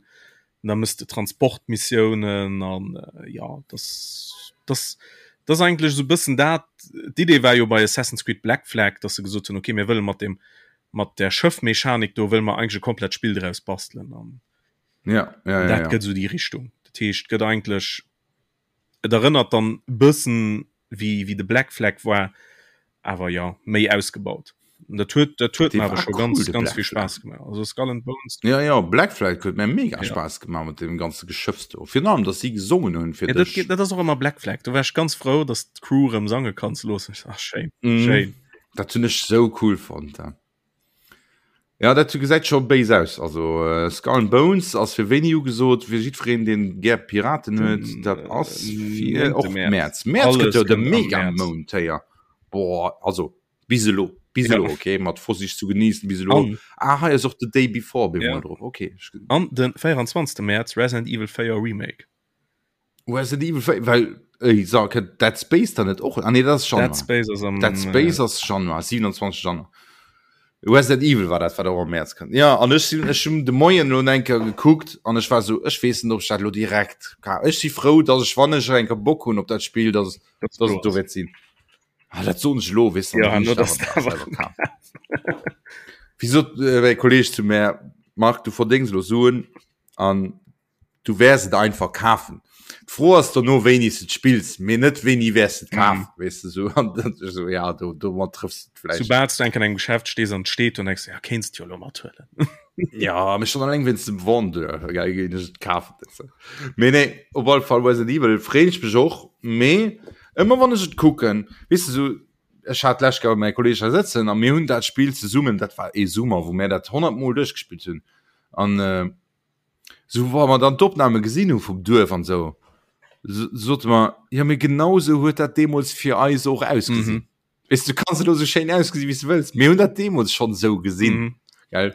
Da mëss de Transportmissiounen an äh, ja das das das eigentlich so bëssen dat d'Idee war jo bei Assassin's Creed Black Flag, dass se gesot hunn okay mir wëlle mat dem mat der Schëffmechanik do wëlle mer eigentlich e komplett Spill draus bastelen an ja, ja, ja, dat ja. gëtt so déi Richtung. Dat heescht gëtt eigentlich Et erënnert dann bëssen wéi wéi de Black Flag war, awer jo méi ausgebaut. Dat huet dat huet mir awer scho ganz cool, ganz vill Spaass gemaach. Also Skull and Bones. Ja ja Black Flag huet mir mega ja. Spaass gemaach mat dem ganze Geschëffs do. Virun allem, dass si gesongen hunn fir ja, dat, dat ass och ëmmer Black Flag. Do war ech ganz frou, dass d'Crew rëm sange kann ze loossen. Ach schéin, mm. schéin. Dat hunn ech sou cool fonnt. Ja. Ja dat gesäit scho béis aus. Also äh, Skull and Bones ass fir wéini ugesot, fir jiddwereen deen gär Piraten huet, mm, dat ass fir och März. März gëtt jo de Mega-Mount héier. Boah, also bis elo, bis elo, ja. okay, mat Vorsicht zu genießen bis elo. An, ah, hei ass och the Day Before ja. drop. Okay. An den 24. März Resident Evil 4 Remake. Resident Evil 4, well ey, so, kënnt Dead Space dann net och? Ah, nee, dat ass Januar. Dead Space ass am Dead Space äh, ass Januar, 27 Januar. Resident Evil war dat, wat och am März kënnt. Ja, an ech sinn ech hunn de Moien lo eng Kéier gekuckt an ech war so, ech weess net, ob ech dat lo direkt ka. Ech si frou, dass ech, wann ech eng Kéier Bock hunn op dat Spill, dass, dass dass et do wäert sinn. Ah, dat soen ech lo, weess du, Ja, dann no, hunn ech dass dat awer selwer kaf. Wéi sot äh, mäi Kolleeg zu mär, Marc, du verdéngs lo Suen an Du wäers et einfach kafen. D'Fro ass dono wéini s de et spills, mee net wéini wäers de et kafen, mm. weess de sou. An dann sou ja do domat trëffs de vläicht. Soubal s du enk an engem Geschäft stees an et steet do, denkst du, ja kéints de jo elo mathuelen. Ja, mee schonn alleng wéinst dem Vendeur géing ech et kafen, weess de. Mee nee, op alle Fall Resident Evil freeën ech mech och, mee ëmmer wann ech et kucken, weess de sou, ech hat d'lescht Kéier mäi Kolleeg hei sëtzen a mir hunn dat Spill zesummen, dat war ee Summer, wou mär dat 100 Mol duerchgespillt hunn an Sou wa mer dann d'Opname gesinn hu vum Duerf an esou, sote mer, jo mee genau sou huet dat deemools fir eis och ausgesinn. Mhm. Weess du kanns elo sou schéin ausgesinn wéi s du wëlls, mir hunn dat deemools schonn esou gesinn. Mhm. Gell?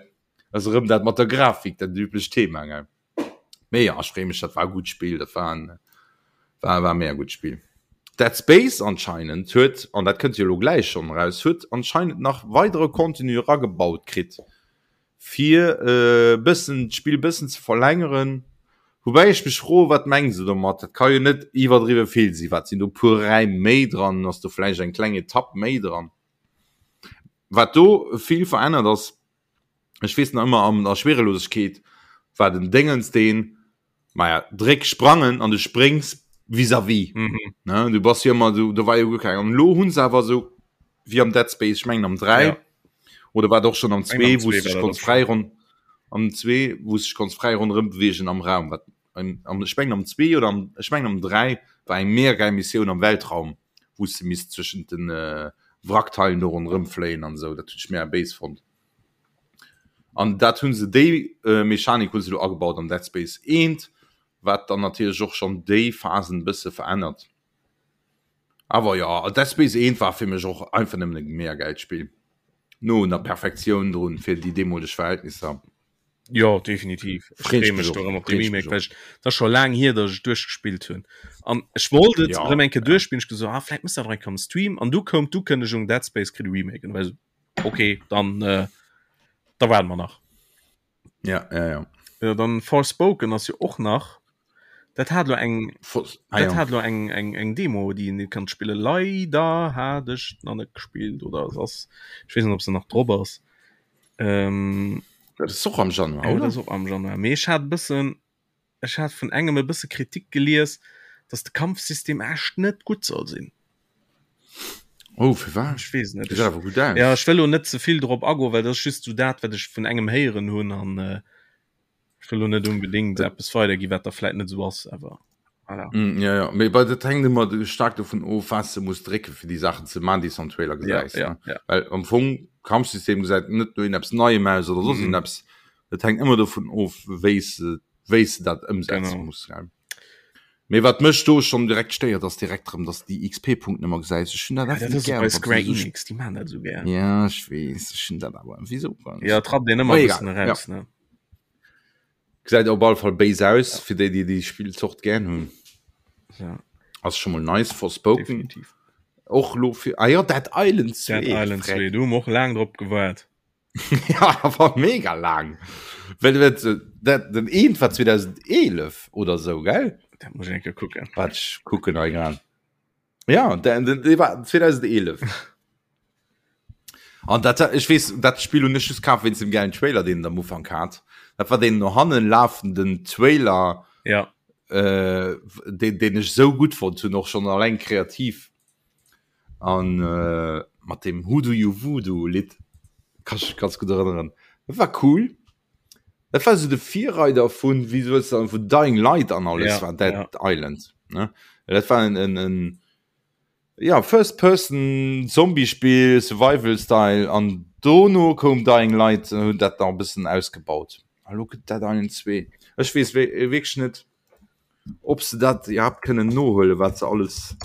Ass erëm dat mat der Grafik, dat üblecht Thema, gell? Mee ja, ech freeë mech, dat war e gutt Spill, dat war en, war, war mega gutt Spill. Dead Space anscheinend huet, an dat kënnt jo elo gläich schonn eraus, huet anscheinend nach weidere Contenu eragebaut kritt. fir e bëssen d'Spill bëssen ze verlängeren. Woubäi ech mech froen, wat mengen se domat? Dat ka jo net iwwerdriwwe vill sinn. Wat sinn do puer Räim méi dran? Ass do vläicht eng kleng Etapp méi dran? Wat do vill verännert ass, ech weess nach ëmmer an der Schwerelosegkeet war den Déngens deen, Maja, dréck sprangen an du spréngs vis-à-vis. Mhm. Ne? Du bass jo ëmmer, du, do war jo guer keng. An elo hunn se awer esou wéi am Dead Space, ech mengen am 3 Ja. oder war et och schon am Eng am 2, wou 2 s war dech dat konns och fräi schon. ron am 2, wou s dech konns fräi ronderëm beweegen am Raum. Wat am, am, ech mengen am 2 oder am, ech mengen am 3 war eng mega geil Missioun am Weltraum, wou s de misst zwëschent den äh, Wrackteilen do ronderëm fléien an esou. Dat hunn ech mega béis fonnt. An dat hunn se déi äh, Mechanik hunn se lo agebaut an Dead Space 1, wat dann natierlech och schonn déi Phasen e bësse verännert. Awer jo, Dead Space 1 war fir mech och einfach nëmmen e mega gäilt Spill. No un der Perfektioun drun fir déi deemoleg Verhältnisser. Jo, definitiv. Ech Freet freeë mech mech och, do erëm op de freet mech Remake, och. well ech, et ass scho laang hier, datt ech et duerchgespillt hunn. An ech wollt et Ja, erëm eng Kéier ja. duerchspillen, ech gesot, ah, vläit mëss dat och eng Kéier am Stream. An du koum d'Ukënnegung, Dead Space kritt e Remake. An du war ech esou, okay, dann, äh, da waarde mer nach. Ja, ja, ja. Ja, dann Forspoken ass jo och nach. Dat hat lo eng ah, dat hat lo eng eng eng Demo déi een kann spille leider hat ech nach net gespillt oder es ass ech weess net ob se nach drop ass. Ähm, dat ass och am Januar ja, oder? Och am Januar mee ech hat bëssen ech hat vun engem e bësse Kritik gelies, datt de Kampfsystem echt net gutt soll sinn. Oh firwat? Ech weess net. Gesäit awer gutt aus. Ja ech wëll lo net zevill drop agoen, well dat ass just sou dat wat ech vun engem héieren hunn an äh, Ech wëll lo net unbedingt eppes weidergi wat da vläit net esou ass, awer voilà. Mm, ja, ja. Mee bei dat hänkt ëmmer staark dovun of, wat s de muss drécke fir déi Saachen ze man, déi s am Trailer gesäis. Ja, ja, ja. Well am Fong Kampfsystem gesäit net no eppes Neiem aus oder soss mm. eppes. Dat hänkt ëmmer dovun of, wéi s de wéi s de dat ëmsetze genau. muss. Gell? Mee wat mech do schon direkt stéiert ass direkt rëm dass déi XP-Punkten ëmmer gesäis. Ech hunn dat ja, dat net gär. Bei Square Enix, déi man dat esou gär. Ja ech weess, ech hunn dat awer wéi sou. Ja trappt een ëmmer e bëssen eraus ja. ne. Gesäit op alle Fall béis aus ja. fir déi déi déi Spillzort gär hunn. Ja. Ass schon mol nice Forspoken. Definitiv. Och lo fir ah ja Dead Island 2. Dead Island 2, do hu mer och laang drop gewaart. ja, war mega lang. Well, well, dat, den eent war 2011 oder so gell? Dat muss ich kucken. Wat ich kucken hei grad. Ja, den, den, den war 2011. An dat, ich wees dat Spiel hun ech just kaf wéinst dem geilen Trailer den am Ufank hat. Dat war den no hannen lafenden Trailer ja. äh, den, den ech so gut fand hun och schon alleng kreativ. An mat deem Who do you voodoo Lidd kann ech mech ganz gutt erënneren. Dat war cool. Dat war esou de Virreider vun, wéi soll ech soen, vun Dying Light an alles Ja, war Dead ja. Island, ne? Dat war en, en, en ja, First Person Zombie-Spill, Survival Style an dono koum Dying Light an hunn dat nach e bëssen ausgebaut. A lo gëtt Dead Island 2. Ech weess wierklech net, ob se dat iwwerhaapt kënnen nohuelen, wat se alles.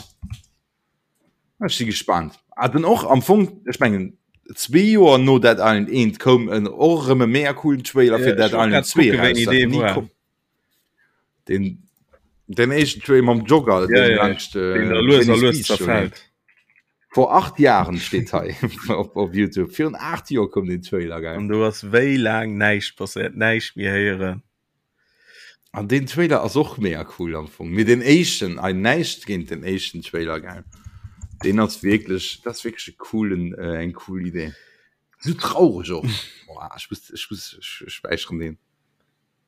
Ech si gespaant. Ah, den och am Fong, ech mengen zwee Joer no Dead Island 1 koum en och erëm e mega coolen Trailer fir Dead Island 2 eraus, dat ni koum. Den, den éischten Trailer mam Jogger, ja, ja, laanscht, äh, den da lues a lues zerfällt. Vor 8 Jahren steet hei op, op YouTube. Virun 8 Joer koum den Trailer, geil. An do ass wéi laang näischt passéiert, näischt méi héieren. An deen Trailer ass och mega cool am Fong. Mee den éischten, ei näischt géint den éischten Trailer gell. Deen ass wierklech, dat ass wierklech e coolen, äh, eng cool Idee. Sou traureg och. Boah, ech muss, ech muss, ech, ech späicheren deen.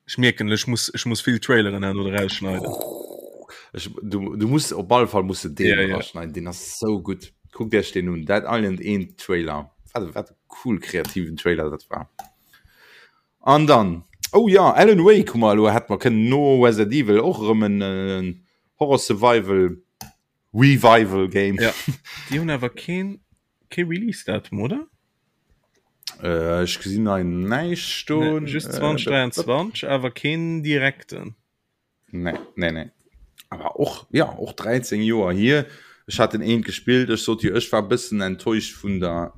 Ech mierken, ech muss, ech muss vill Traileren herno erausschneiden. Ech, du, du muss op alle Fall muss de deen Ja, ja. erausschneiden, deen ass sou gutt. Kuckt iech deen un, Dead Island 1 Trailer. Wat, wat e cool kreativen Trailer dat war. An dann, oh ja, Alan Wake hu mer elo, hätte mer kënnen no Resident Evil och erëm en Horror Survival Revival Game. Ja, déi hunn awer keen, kee Release Datum, oder? Äh, ech gesinn hei näischt stoen. Nee, just 2023, awer keen direkten. Nee, nee, nee. Aber och, ja, och 13 Joer hier. Ech hat den eent gespillt. Ech sot jo, ech war bëssen enttäuscht vun der,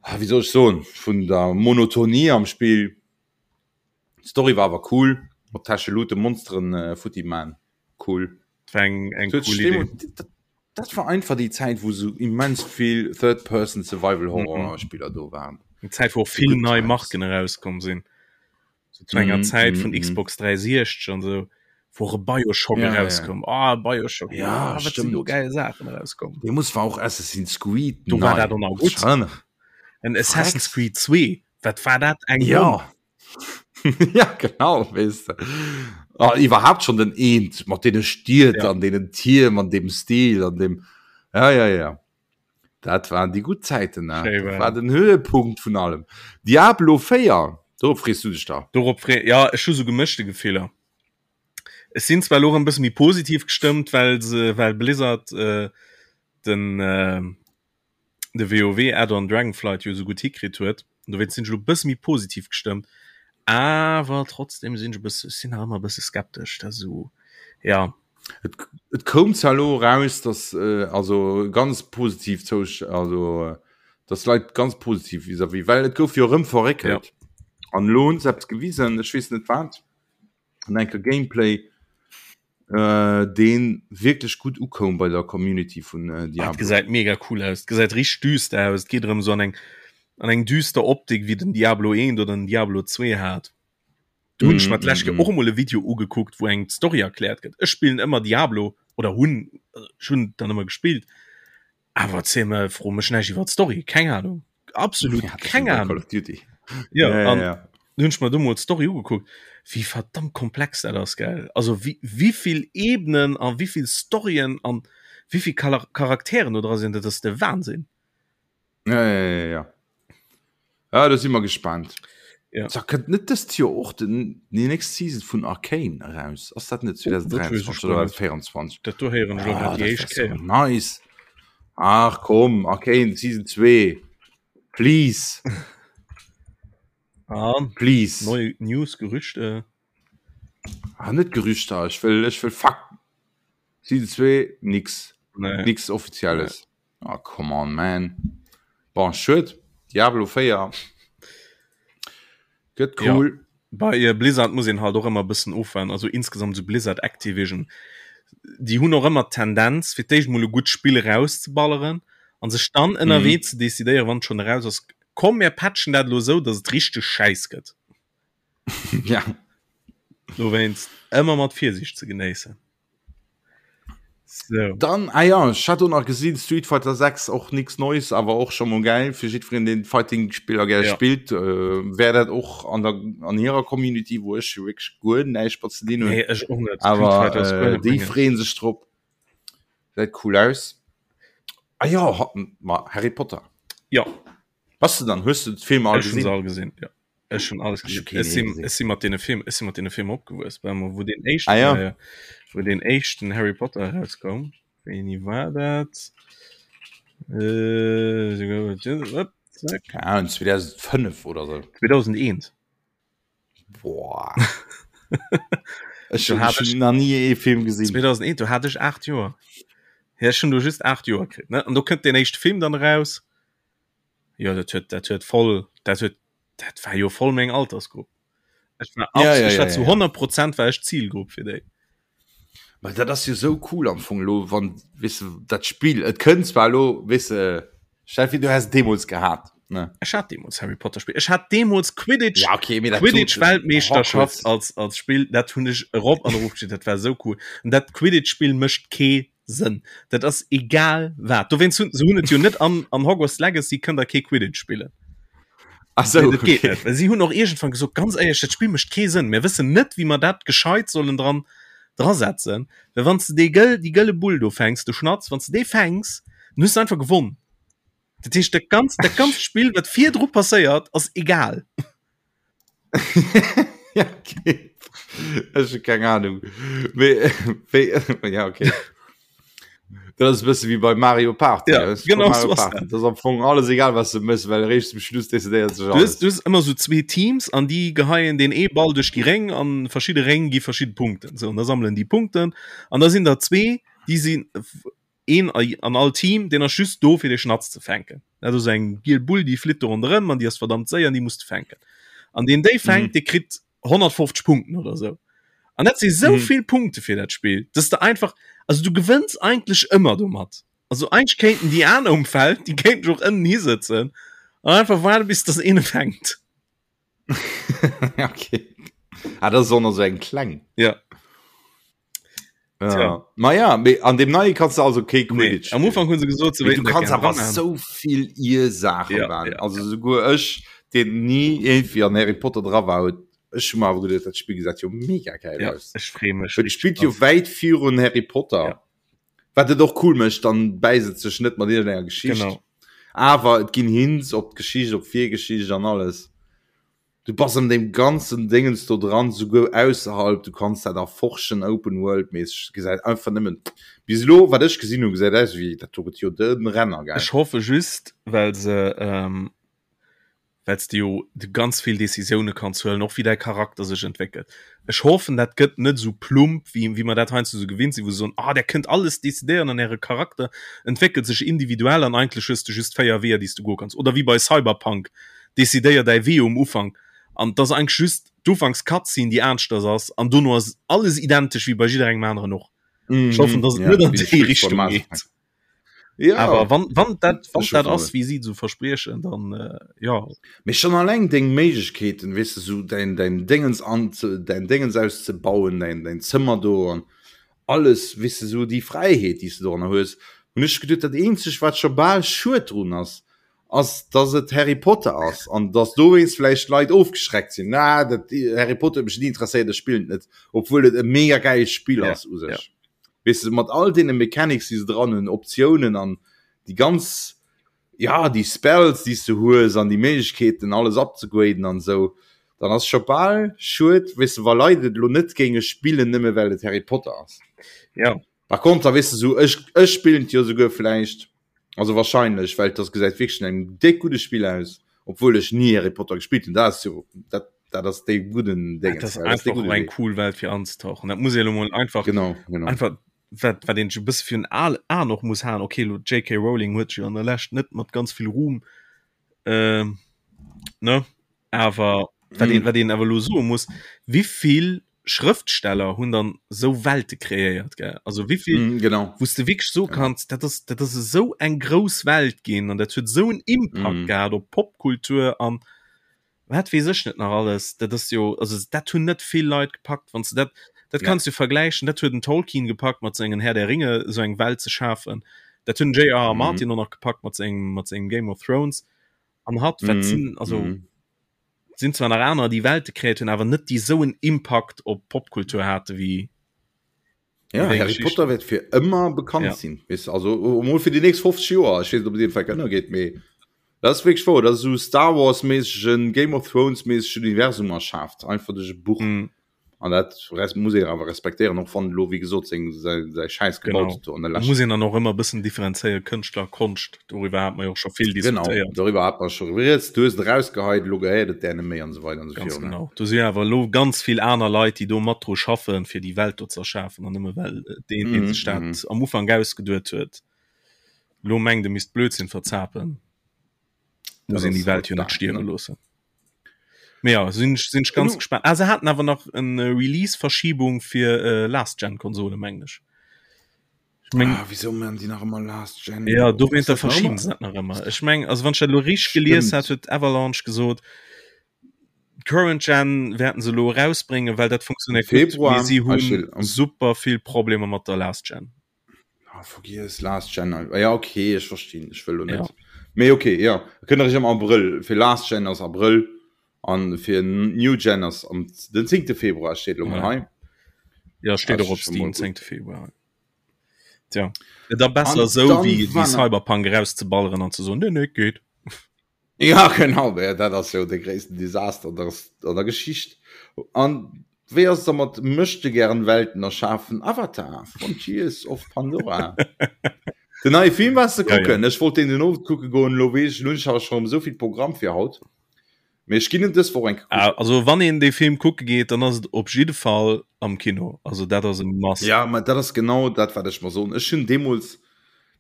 ah, wéi soll ech soen, vun der Monotonie am Spill. D'Story war awer cool, mat Täschelute Monsteren äh, futti man. Cool. Dat war eng, eng cool Idee. Dat, dat war einfach déi Zäit, wou sou immens vill Third-Person-Survival-Horror-Spiller do waren. Eng Zäit, wou och vill nei Marken erauskomm sinn. So zu enger mm, Zäit mm, vun mm. Xbox 360 an so wo e Bioshock ja, rauskomm ja. ah, Bioshock ja, ah, stimmt. do geil Sachen rauskomm De muss war auch Assassin's Creed du war dat auch gut en Assassin's Creed 2 wat war dat eng ja ja genau weißt du. Ah, iwwerhaupt schon den eent mat dee Stiert ja. an denen Tier an dem Stil an dem ja ja ja Dat waren déi gutt Zäiten, ne? Schéi Dat war war den Höhepunkt vun allem. Diablo 4, dorop frees du dech da. Dorop free, ja, ech hu sou gemëschte Gefiller. Ech sinn zwar elo erëm e bësse méi positiv gestëmmt, well se, well Blizzard äh, den, äh, de WoW Add-on Dragonflight jo sou gutt hikritt huet. Dowéinst sinn ech elo e bësse méi positiv gestëmmt. Awer trotzdem sinn ech e bësse, ech sinn nach ëmmer e bësse skeptesch, dat esou, ja. Et, et koum zwar elo eraus, dass äh, also ganz positiv zou, also dass Leit ganz positiv vis-à-vis, well et gouf jo erëm verréckelt. Ja. An elo hunn se eppes gewisen, ech weess net wat, an enker Gameplay, äh, dee wierklech gutt ukoum bei der Community vun äh, Ah, et Diablo. gesäit mega cool aus. Et gesäit richteg düster aus. Et geet erëm esou an eng, an eng düster Optik, wéi den Diablo 1 oder den Diablo 2 hat. Do hunn ech mer d'lescht Kéier och emol e Video ugekuckt, wou eng d'Story erkläert gëtt. Ech spillen ëmmer Diablo oder hunn ech hunn dann ëmmer gespillt. Awer erzähl mer, fro mech näischt iwwer d'Story, keng Ahnung. Absolut ja, keng Ahnung. Call of Duty. Ja, ja, ja, ja. Hunn ech mer do mol d'Story ugekuckt, wéi verdammt komplex dat ass, gell? Also wéi, wéivill Ebenen a wéivill Storyen an wéivill Charakteren do dra sinn, dat ass de Wahnsinn. Ja, ja, ja, ja. Ja, da si mer gespannt. Ja. Da kënnt net dëst Joer och den, déi nächst Season vun Arcane eraus? Ass dat net 2023 oder 2024? Dat do héieren ech elo grad déi éischt Kéier. Nice. Ach komm, Arcane Season 2. Please. Ah, Please. Neue News, Gerüchte. Ah, net Gerüchter, ech wëll, ech wëll Fakten. Season 2, nix. Nee. Nix Offizielles. Nee. Ah, come on, man. Bon, schued. Diablo 4 gëtt cool. Ja. Bei äh, Blizzard muss een halt och ëmmer bëssen ofwaarden. Also insgesamt so Blizzard Activision. Déi hunn och ëmmer d'Tendenz, fir d'éischt mol e gutt Spill erauszeballeren an sech dann ënnerwee mm. ze decidéieren, wann et schon eraus ass, komm mir patchen dat lo sou, dass et richteg schäiss gëtt. ja. Dowéinst ëmmer mat Virsiicht ze genéissen. So. Dann ah ja, ech hat do nach gesinn Street Fighter 6 och nix Neues, awer och scho mol geil fir jiddwereen deen Fighting-Spiller gär ja. spillt äh, wär dat och an der an hirer Community, wou ech wierklech guer näischt mat ze dinn hunn. Nee, ech och net. Awer äh, déi freeën sech drop. Gesäit cool aus. Ah ja, ma Harry Potter. Ja. Bass du dann hues du d'Filmer all gesinn? All gesinn ja. Ech hun alles gesinn. Ech sinn ech sinn mat deene Film ech sinn mat deene Filmer opgewuess, well mer wou den éischten ah, ja. äh, wou den éischten Harry Potter erauskoum. Wéini war dat? Äh, Keine Ahnung, 2005 oder so. 2001. Boah. Ech hun hat ech nach nie ee Film gesinn. 2001 do hat ech 8 Joer. Ja, ech hun do just 8 Joer kritt ne an do kënnt den éischte Film dann eraus. Jo dat huet dat huet voll dat huet dat war jo voll meng Altersgrupp. Ech war, ja, ja, ech war ja, zu ja. 100 Prozent war ech Zielgrupp fir déi. Ma dat ass jo sou cool am Fong lo wann weess de dat Spill et kënnt zwar lo weess de stell vir du häss et deemools gehat ne. Ech hat deemools Harry Potter Spill. Ech hat deemools Quidditch Ja okay mee dat Quidditch sot Weltmeeschterschaft Hogwarts als als Spill dat hunn ech erop an erof gespillt. Dat war sou cool. An dat Quidditch Spill mécht kee Sënn. Dat ass egal wat. Dowéinst hunn se hunn et jo net an an Hogwarts Legacy kënnt der kee Quidditch spillen. Ach sou, Nee, dat geet okay. net. Well si hunn och iergendwann gesot, ganz éierlech, dat Spill mécht kee Sënn. Mir wëssen net, wéi mer dat gescheit sollen dran drasetzen. Well wann s de dee gëll déi gëlle Bull do fänks, de Schnatz, wann s de dee fänks, dann hues de einfach gewonn. Dat heescht, dat ganz dat ganzt Spill, wat virdru passéiert, ass egal. ja, okay. Ech hu keng Ahnung. Mee, wéi, ja, okay. Dat ass e bësse wéi bei Mario Party. Ja, weißt du, genau Mario so ass Party. Dat ass am Fong alles egal, was du mëss, well eréischt zum Schluss decidéiert sech Du hues, alles. du hues ëmmer sou zwee Teams an déi geheien deen ee Ball duerch déi Réng an verschidde Réng gi verschidde Punkten. Sou, an da sammelen déi Punkten an da sinn der zwee, déi sinn een an all Team, deen ass just do fir dee Schnatz ze fänken. Dat ass eng giel Bull, déi flitt do ronderëm an déi ass verdammt séier an déi muss de fänken. An deen déi fänkt, mm. dee kritt 150 Punkten oder sou. An dat si sou mm. vill Punkte fir dat Spill, dass de einfach also du gewënns eigentlech ëmmer domat. Also eigentlech kéinten déi aner um Feld, déi kéinten och ënnen hisëtzen an einfach waarde bis dass een e fänkt. okay. Ah, das ist auch noch so eng kleng. Ja. Ja. Ma ja, mee an dem neie kannst du also kee Quidditch. Nee, am Ufang hunn se gesot, se du kannst awer so vill ir Saachen ja, ja, also ja. souguer ech, den nie irgendwie an Harry Potter dra war, huet ech hun awer geduet, dat Spiel gesäit jo mega geil ja, aus. Ech free mech. Et spielt jo wäit virun Harry Potter. Ja. Wat et och cool mécht, dann bäisst et sech net mat iergendenger Geschicht. Genau. Awer et ginn Hints op d'Geschicht, op d'Virgeschicht an alles. Du bass an deem ganzen Dingens do dran, souguer ausserhalb, du kanns dat erforschen, Open World mäßeg. Gesäit einfach nëmmen, bis elo wat ech gesinn hunn, gesäit aus wéi, dat do gëtt jo de Renner, gell? Ech hoffe just, well se ähm, well s de jo de ganz vill Decisioune kanns huelen, och wéi däi Charakter sech entwéckelt. Ech hoffen, dat gëtt net esou plump, wéi, wéi mer dat heiansdo esou gewinnt sinn, wou se soen, ah, där kënnt alles decidéieren an äre Charakter entwéckelt sech individuell an eigentlech hues de just 4 Weeër, déi s du goe kanns. Oder wéi bei Cyberpunk, decidéier däi Wee um Ufank an et ass eigentlech just d'Ufanks-Cutscene, déi aneschters ass an dono ass alles identesch wéi bei jidderengem aneren och. Ech hoffen, dass et net an déi Richtung geet. Ja. Awer wann, wann dat, wann dat ass, wéi si sou verspriechen, dann äh, ja. Mee schon alleng deng Méiglechkeeten, weess de, sou däin, däin Déngens an, däin Déngens auszebauen, däin, däin Zëmmer do an alles, weess de, sou déi Fräiheet, déi s de doranner hues, hunn ech geduet, dat eenzegt, wat scho bal schued drun ass, ass, dass et Harry Potter ass an dass dowéinst vläicht Leit ofgeschreckt sinn, Na, dat Harry Potter huet mech ni interesséiert, ech spillen et net, obwuel et e mega gäilt Spill ass u sech. Weess de, mat all deene Mechanics, déi se dran hunn, Optiounen an déi ganz, ja, déi Spells, déi s de hues an déi Méiglechkeeten, alles upzegraden an esou, dann ass scho bal schued, weess de, wa Leit et elo net géinge spillen, nëmme well et Harry Potter ass. Ja. Par contre, weess de, sou, ech, ech spillen et jo souguer vläicht, also wahrscheinlech, well et ass, gesäit wierklech no engem déck gudde Spill aus, obwuel ech ni Harry Potter gespillt hunn. Dat ass jo, dat, dat ass dee gudden Dingens, dat ass ja, einfach och eng cool Welt fir anzetauchen. Dat muss ee lo mol einfach, genau, genau. einfach wat, wat een e bësse fir en Al An och muss han. Okay, lo JK Rowling huet jo an der Lescht net mat ganz vill Ruhm äh, ne? Awer wat een, mm. wat een awer lo soe muss, wievill Schrëftsteller hunn dann sou Welte kreéiert gell? Also wievill mm, genau. wous de wierklech so kanns, dat ass dat ass esou eng grouss Welt ginn an dat huet esou en Impact mm. gehat op Popkultur an wat weess ech net nach alles. Dat ass jo also dat hunn net vill Leit gepackt, wann s de dat dat ja. kanns du vergläichen, dat huet den Tolkien gepackt mat sengen Herr der Ringe esou eng Welt ze schafen. Dat hunn J.R.R. Mm. Martin och nach gepackt mat sengem mat sengem Game of Thrones an hat wat mm. sinn also mm. sinn zwar nach aner déi Welte kreéiert hunn, awer net déi sou en Impakt op Popkultur hate wéi Ja, Harry Potter wäert fir ëmmer bekannt ja. sinn weißt, also mol fir die nächst 50 Joer ech weess op den Fall ënner geet mee dat ass wierklech wouer dat esou Star Wars méissegen Game of Thrones méissegen Universum erschaaft einfach duerch e Buch mm. An dat muss een awer respektéieren, och wann elo wéi gesot seng säi Schäiss gebaut huet do an der Lescht. Muss een dann och ëmmer e bëssen differenzéieren, Kënschtler, Konscht, doriwwer hate mer jo och scho vill diskutéiert. Genau, doriwwer hate mer scho rieds, du hues et erausgeheit, elo gehéiert et där net méi an esou weider an esou virun. Ganz genau, do si awer elo ganz vill aner Leit, déi do mat dru schaffen, fir déi Welt do ze erschafen an nëmme well deen, dee sech dat am Ufank ausgeduet huet, elo mengt e misst Blödsinn verzapen, muss een déi Welt jo net stierwe loossen. Mee ja, sinn ech, sinn ech ganz gespannt. Ah, se haten awer nach en äh, Release-Verschiebung fir äh, Last-Gen-Konsole, mengen ech. Ich meng, ah, wieso man die nach immer Last Gen? Ja, do wéinst der verschieben se dat nach ëmmer. Ech meng, also wann ech dat lo richteg gelies hat, huet Avalanche gesot, Current Gen wäerten se lo erausbréngen, well dat funktionéiert gutt, mee si hunn super vill Problemer mat der Last Gen. Ah, vergiess Last Gen. Ah, ja, okay, ech verstinn. Ech wëll lo net. Ja. Mee okay, ja. Kënnt erich am Abrëll. Fir Last Gen ass Abrëll an fir New Gen ass am den 10. Februar steet lo mol hei. Ja, steet och op Steam 10. Februar. Tja. Et da besser sou wéi wéi Cyberpunk erauszeballeren an ze soen, nee, nee, geet. Ja genau, ja, dat ass jo de gréissten Desaster an der, an der Geschicht. An wéi ass da mat möchte gern Welten erschafen Avatar Frontiers of Pandora? Den neie Film wars de kucken? Ja, ja. Ech wollt den den Owend kucke goen, lo weess ech, lo hunn ech awer scho esou vill Programm fir haut. Mee ech ginn en dës Woch eng kucken. Ah, also wann een dee Film kucke geet, dann ass et op jidde Fall am Kino. Also dat ass e Must. Ja, ma dat ass genau dat wat ech mer soen. Ech hunn deemools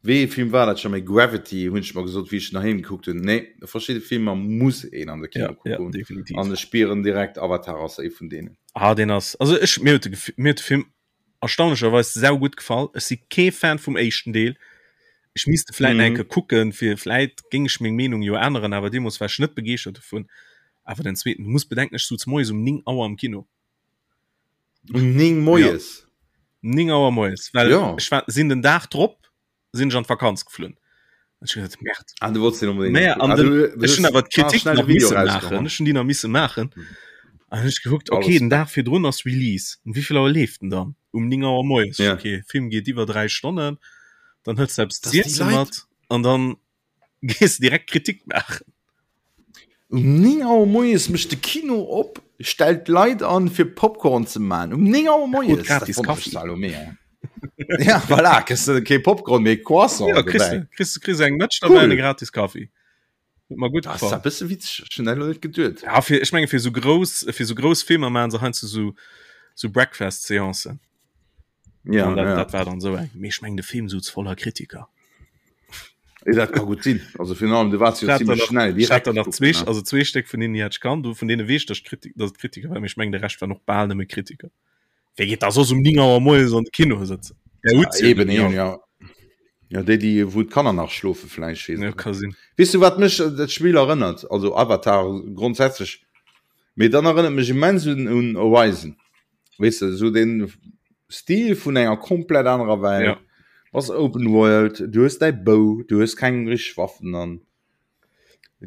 Wéi ee Film war dat scho méi? Gravity hunn ech mer gesot, wéi ech en doheem gekuckt hunn. Nee, verschidde Filmer muss een an de Kino kucke goen. Ja, definitiv. An ech spieren direkt, Avatar ass ee vun deenen. Ah, deen ass, also ech, mir huet de, mir huet de Film erstaunlecherweis saugutt gefall. Ech si kee Fan vum éischten Deel. Ech misst e vläit nach eng Kéier kucken, fir vläit géing ech meng Meenung jo änneren, awer deemools war ech net begeeschtert dovun. Awer den zweeten, du muss bedenken, ech souz moies um 9 Auer am Kino. Um 9 moies? Ja. 9 Auer moies, well ja. ech war, sinn den Dag drop sinn ech an d'Vakanz geflunn. Ech gedacht, Merd. Ah, du wolltest den unbedingt. Naja, an ah, den, ech hunn awer d'Kritik nach misse maachen. Ech hunn déi nach misse maachen. Mhm. An ech gekuckt, okay, den Dag virdrun ass Release. Um wéi vill Auer leeft den dann? Um 9 Auer moies. Ja. Okay, Film geet iwwer 3 Stonnen. Dann hëls du eppes z'iessen mat an dann gees direkt Kritik maachen. Um 9 Auer moies mécht de Kino op, stellt d'Leit an fir Popcorn ze man. Um 9 Auer moies gratis Kaffi. Ja voilà, kriss de kee Popcorn mee Croissant. Ja, kriss de, kriss, kriss eng Mëtsch cool. dabei, gratis Kaffi. Huet mer gutt gefall. Dat ass e bësse witzeg, ech hunn dat elo net geduet. Ja, fir, ech menge fir sou grouss, fir sou grouss Filmer maachen se heiansdo sou, sou Breakfast-Seancen. Ja, dat, ja. dat war dann so eng. Mee ech meng de Film souz voller Kritiker. Ja, dat ka gut sinn. Also fir allem du warst jo ziemlich schnell direkt nach zwee also zwee Stéck vun denen hat kann du vun denen wees dass Kritik dass Kritiker war ich meng de Recht war noch bal nëmme Kritiker. Wéi geet da soss um 9 Auer moies an de Kino sëtzen? Der huet ja, eben, eben, ja. Ja, déi, déi wou d'Kanner nach schlofe vläicht, weess Ja, et ka net. sinn. Weess du wat mech dat Spill erënnert? Also Avatar grondsätzlech, mee dann erënnert mech immens un, un Horizon. Weess de, esou den Stil vun enger komplett anerer Welt. Ja. Ass Open World, du hues däi Bou, du hues keng richteg Waffen an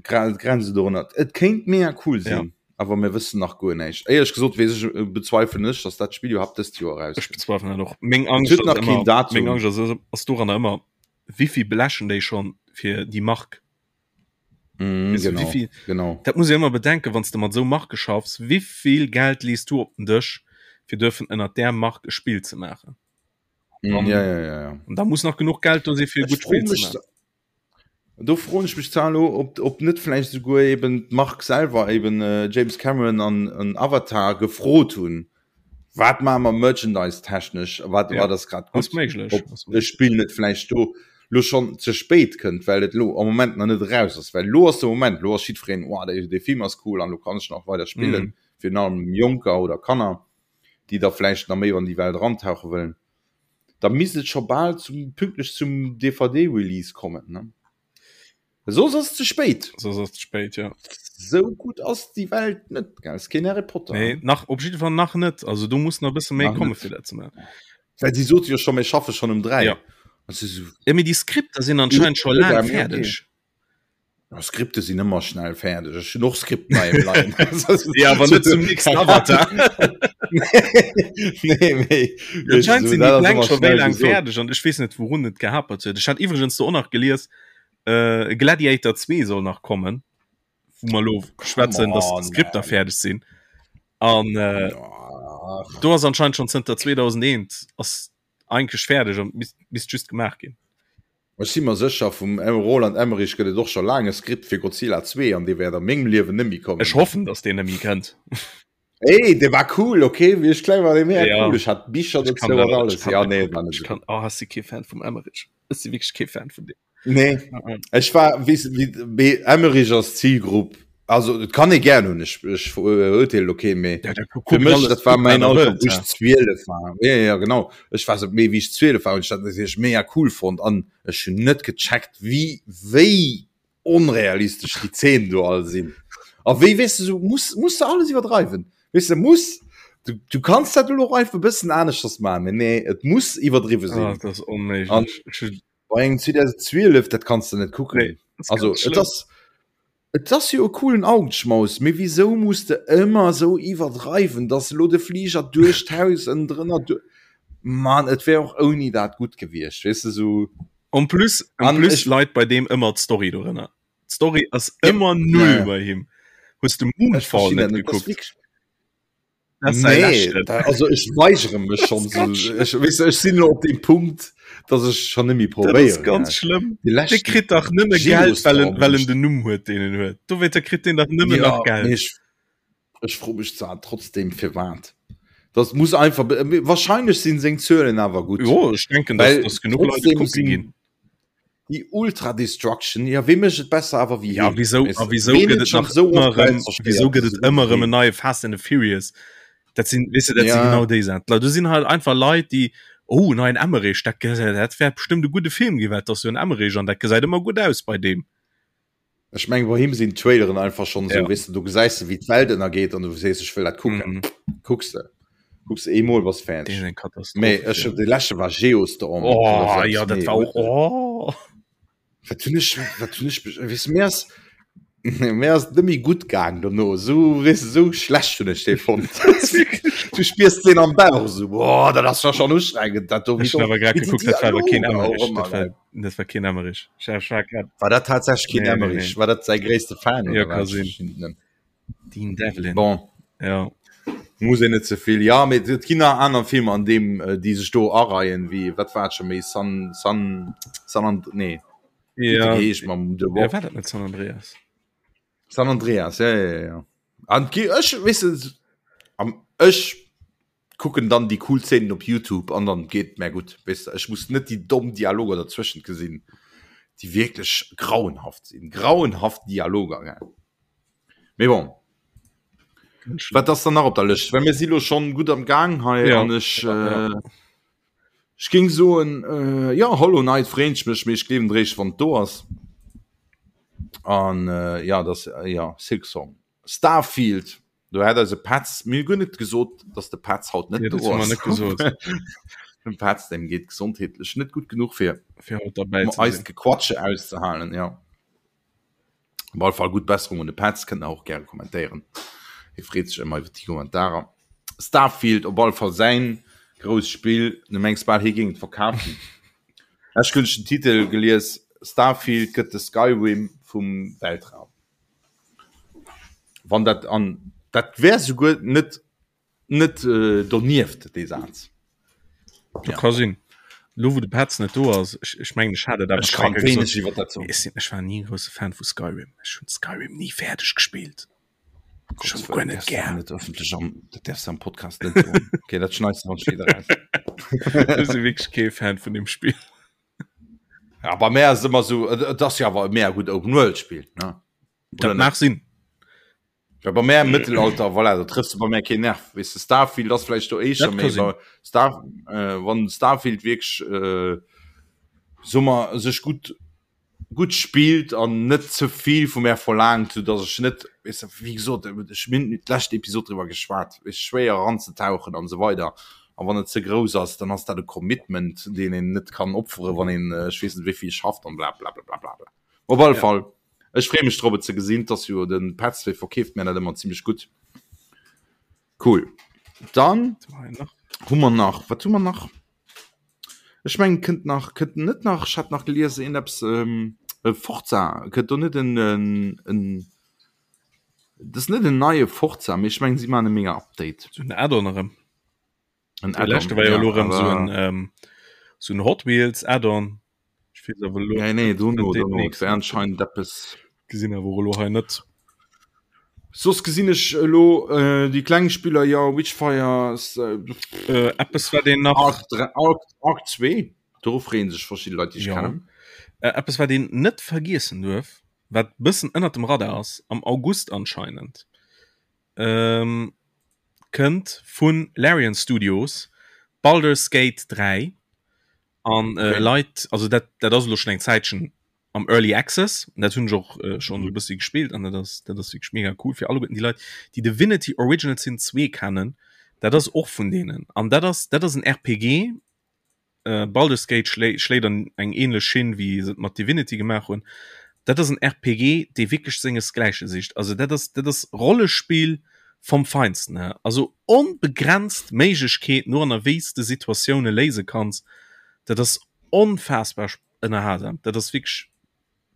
Grenze dorënner. Et kéint mega cool sinn, ja. awer mir wëssen nach guer näischt. Éierlech gesot weess ech, äh, bezweifelen ech, dass dat Spill iwwerhaapt dëst Joer Ech erauskënnt. bezweifelen dat och. Meng Et Angscht huet ass nach keen ëmmer, Datum. meng Angscht ass, ass doranner ëmmer, wéivill blechen déi schonn fir déi Mark? Mm, Weess du, genau, wéivill, genau. dat muss ee ëmmer bedenken, wann s de mat esou Marke schaffs, wéivill Geld lees du op den Dësch, fir duerfen ënnert där Mark e Spill ze maachen? Mm, An, ja, ja, ja, ja. an da muss nach genuch Geld do si fir e Ech gutt froe Spill ze mech, maachen. Do froen ech mech zwar elo, ob, ob net vläicht esouguer eben d'Mark selwer, eben James Cameron an, an Avatar gefrot hunn, wat maache mer merchandise-technesch, wat, Ja, wat ass grad ass gutt, méiglech, ob ass e méiglech. Spill net vläicht do lo schonn ze spéit kënnt, well et elo am Moment nach net eraus ass. Well elo ass de Moment, elo ass jiddwereen, oh, dee, dee Film ass cool an elo kann ech nach weider spillen, Mhm. virun allem Jonker oder Kanner, déi da vläicht nach méi an déi Welt erantauche wëllen. Da misst et scho bal zum pünktlech zum DVD-Release kommen, ne? Soss ass et ze spéit. Soss ass et ze spéit, ja. Sou gutt ass déi Welt net, gell? Ass keen Harry Potter. Nee, nach, op jidde Fall nach net. Also do muss nach e bësse méi komme fir dat ze maachen. Well si sote jo scho, mir schaffe schonn um 3. Ja. Also, Ja, mee déi Skripter sinn anscheinend scho laang fäerdeg. Ja, Skripte sinn ëmmer schnell fäerdeg. Ech hunn och Skripten hei am Leien. Ja, awer net zum nächsten Avatar. Nee, mee Anscheinend sinn déi dat ass Pläng ëmmer scho wéi schnell laang gesot. fäerdeg an ech weess net, wourun et gehapert huet. Ech hat iwwregens do och nach gelies, äh, Gladiator 2 soll nach kommen, wou mer elo schwätzen, dass on, d'Skripter man. fäerdeg sinn. An äh, Ach. do ass anscheinend schon zënter 2001 ass eigentlech fäerdeg an misst, misst just gemaach ginn. Ech si mer sécher, vum Roland Emmerich gëtt et och scho laang e Skript fir Godzilla 2 an dee wäert a mengem Liewen net méi kommen. Ech hoffen, dass deen net méi kënnt. Ey, dee war cool, okay? Wéi ech kleng war, dee mega Ja. cool. Ech hat Bicher Ech kann dozou an dat, ech alles. kann Ja, net nee, kucken. war net Ech esou kann, gutt. oh, ech si kee Fan vum Emmerich. Ech si wierklech kee Fan vun deem. Nee, ech war, weess de, wéi, mee Emmerich ass Zilgrupp, also et kann ee gären hunn, ech, ech verurteelen elo keen, mee Ja, da fir kucken mech, alles dat war gutt, mäin wat er Alter, wëllt, wou ech ja. 12 war. Ja, ja, genau. Ech war sou, mee wéi ech 12 war, hunn ech dat natierlech mega cool fonnt an ech hunn net gecheckt, wéi, wéi onrealistesch déi Zeenen do all sinn. A wéi, weess de, sou muss, muss de alles iwwerdreiwen. Weess de, muss, du, du kanns dat elo och einfach e bëssen aneschters maachen, mee nee, et muss iwwerdriwwe Ah, sinn. dat ass An onméiglech. Ech hunn bei engem 2012, dat kanns de net kucken. Nee, dat ass Also, ganz et schlëmm. ass, Et ass jo e coolen Augenschmaus, mee wisou muss de ëmmer esou iwwerdreiwen, dass elo de Fliger duerch d'Haus ënnendrënner du. Mann, et wär och ouni dat gutt gewiescht, weess de, sou. En plus, en An plus ech. leit bei deem ëmmer d'Story dorënner. D'Story ass Ja, ëmmer ja, null ja. bei him. Hues de Ech Moonfall verstinn net dat net, dat ass gekuckt? wierklech. Dat ass säi Nee, leschten. da, also ech weigere mech Dat schonn ass ganz sou. schlëmm. Ech, weess de, ech sinn elo op deem Punkt, dass ech schonn net méi Dat ass probéieren, ganz gell. schlëmm. Dee Dee leschten kritt dach nëmme Geld, well en, Geostorm well hunn en ech. den Numm huet, deen en huet. Dowéinter kritt deen dach nëmmen Ja, nach mee Geld. ech, ech froe mech zwar trotzdem firwat. Das muss einfach, wahrscheinlech sinn seng Zuelen awer gutt. Jo, ech denken, dass, Well dass genuch Leit et trotzdem kucke sinn ginn. déi Ultra Destruction, ja wee mécht et besser awer wéi Ja, heen? wieso, Weess a de, wieso ween gëtt huet et schonn nach esou ëmmer oft Welt erëm, wieso zerstéiert gëtt et esou gutt ëmmer wéi erëm en heen? neie Fast and the Furious? Dat sinn, weess de, dat sinn Ja. genau déi Saachen. D'Leit, do sinn halt einfach Leit, déi, oh, neien Emmerich, dat gesäit, dat wäert bestëmmt e gudde Film ginn, well et ass jo en Emmerich an dat gesäit ëmmer gutt aus bei deem. Ech mengen, bei him sinn d'Traileren einfach schonn esou, Ja. weess de, do gesäis de wéi d'Welt ënnergeet an du sees, ech wëll dat kucken. Mhm. Kucks de, kucks de eemol, bass Dee fäerdeg. ass eng Katastroph, Mee ech, Film. dee leschte war Geostorm oder Oh, sou eppes, ja, dat nee, war och, huet oh. Wat hunn ech, wat hunn ech, weess de, mir ass, mir ass net méi gutt gaang dono, esou, weess de, esou schlecht hunn ech dee fonnt. Du spiers deen am Bauch esou, boah, dat ass jo schonn ustrengend, dat do, wéi Ech hunn do, awer grad wéi déi gekuckt, dat war awer keen Dialoger och Emmerich, ëmmer, dat war, gell. dat war keen Emmerich. Ech, ech war grad, War dat tatsächlech keen nee, nee, Emmerich? nee. War dat säi gréisste Fan Ja, oder ka wat? Ech sinn. verstinn et net. Dean Devlin. Bon, Ja. muss een net ze vill. Ja, mee et ginn nach aner Filmer an deem, äh, déi sech do areien, wéi, wat war et scho méi, San, San, San And, nee, wéi huet Ja, de geheescht mam The ja, Rock? war dat net San Andreas? San Andreas, ja, ja, ja, ja. An gi, ech, weess de, am, ech kucken dann déi cool Szenen op YouTube an dann geet mär gutt, weess de. Ech muss net déi domm Dialoger derzwëschent gesinn, déi wierklech grauenhaft sinn, grauenhaft Dialoger, gell. Mee bon. Wat ass dann nach op der Lëscht? Well mir si lo schonn gutt am Gaang hei Ja, an ech ja, ja. äh, Ech géing soen, äh, ja, Hollow Knight freeën ech mech, mee ech gleewen et réischt, wann et do ass. An äh, ja, das, äh, ja, Silksong. Starfield, do hat eise Petz, mir hu guer net gesot, dass de Petz haut net Ja, do dat hu mer ass. net gesot. Dem Petz, dem geet gesondheetlech net gutt genuch fir Fir haut derbäi um ze eist sinn. Gequatsche auszehalen, ja. Op alle Fall gutt Besserung un de Petz, kënnt der och gäre kommentéieren. Hie freet sech ëmmer iwwer déi Kommentarer. Starfield op alle Fall säin grousst Spill, du mengs bal hie géing et verkafen. Ech hunn den Titel gelies, Starfield gëtt de Skyrim vum Weltraum. Wann dat an dat wär souguer net Net donieft dee Saz. Dat ka sinn. Lo wou de Petz net do ass, ech, ech mengen ech hat et awer Ech kann schon eng Kéier wéineg gesot, iwwer dat soen. Ech sinn, ech war ni e grousse Fan vu Skyrim. Ech hunn Skyrim ni fäerdeg gespillt. Ech Gottes hunn guer Wëllen, net däerfs du gär. net ëffentlech am, dat däerfs du am Podcast net soen. Okay, dat schneits du dann spéider raus. Ech si wierklech kee Fan vun deem Spill. Ja, bei mär ass et ëmmer esou, et, et ass jo awer e mega gutt Open-World-Spill, ne? Dat Oder net? mag sinn. Ja, bei mär im Mëttelalter, voilà, da trëffs du bei mär keen Nerv. Weess de, Starfield ass vläicht do éischter, Dat mee ka sinn. bei Star, äh, wann Starfield wierklech, äh, soe mer, sech gutt, gutt spillt an net ze vill vu mär verlaangt, sou dass ech net, weess de, wéi gesot, ech mir hunn d'lescht Episod driwwer geschwat, weess, schwéier eranzetauchen an esou weider. A wann et ze grouss ass, dann ass dat e Commitment, deen een net kann opfere wann een, ech weess net wéi vill schafft an bla bla bla bla bla. Op alle Ja. Fall. Ech free mech drop et ze gesinn, et ass jo den Petz dee verkeeft mär dat ëmmer zimmlech gutt. Cool. Dann hu mer nach, wat hu mer nach? Ech mengen kënnt nach, kënnt net nach, ech hat nach gelies een eppes ähm, e Forza, kënnt do net en en en dat ass net en neie Forza, mee ech mengen si maachen e mega Update. Sou en Add-on erëm. En De leschte Add-on, war jo ja, elo erëm sou awer en ähm, sou en Hot Wheels Add-on. Ech weess awer elo Nee, nee, dono, net deen dono, et nächsten. wär anscheinend eppes. Gesinn awer och elo hei net. Soss gesinn ech elo äh, déi kleng Spiller, jo, Witchfire, Äh, eppes wat een nach Ark, Ark, Ark 2, doru freeën sech verschidde Leit, déi ech Ja. kennen. Äh, eppes wat een net vergiessen duerf, wat bëssen ënnert dem Radar ass, am August anscheinend, ähm, kënnt vu Larian Studios Baldur's Gate 3 an äh, Okay. Leit, also dat, dat ass elo schon eng Zäitchen am Early Access, dat hunn ech och äh, schon e bëssi gespillt an dat ass, dat ass wierklech mega cool fir alleguerten déi Leit, déi Divinity Original Sin 2 kennen, dat ass och vun deenen an dat ass, dat ass en RPG, äh, Baldur's Gate schlé schléit an eng ähnlech Schinn wéi se et mat Divinity gemaach hunn. Dat ass en RPG, dee wierklech sengesgläiche sicht. Also dat ass, dat ass Rollespill vom Feinsten, hä. Also onbegrenzt Méiglechkeeten no an a wéi s de Situatioune léise kanns. Dat ass onfaassbar ënnerhalsam. Dat ass wierklech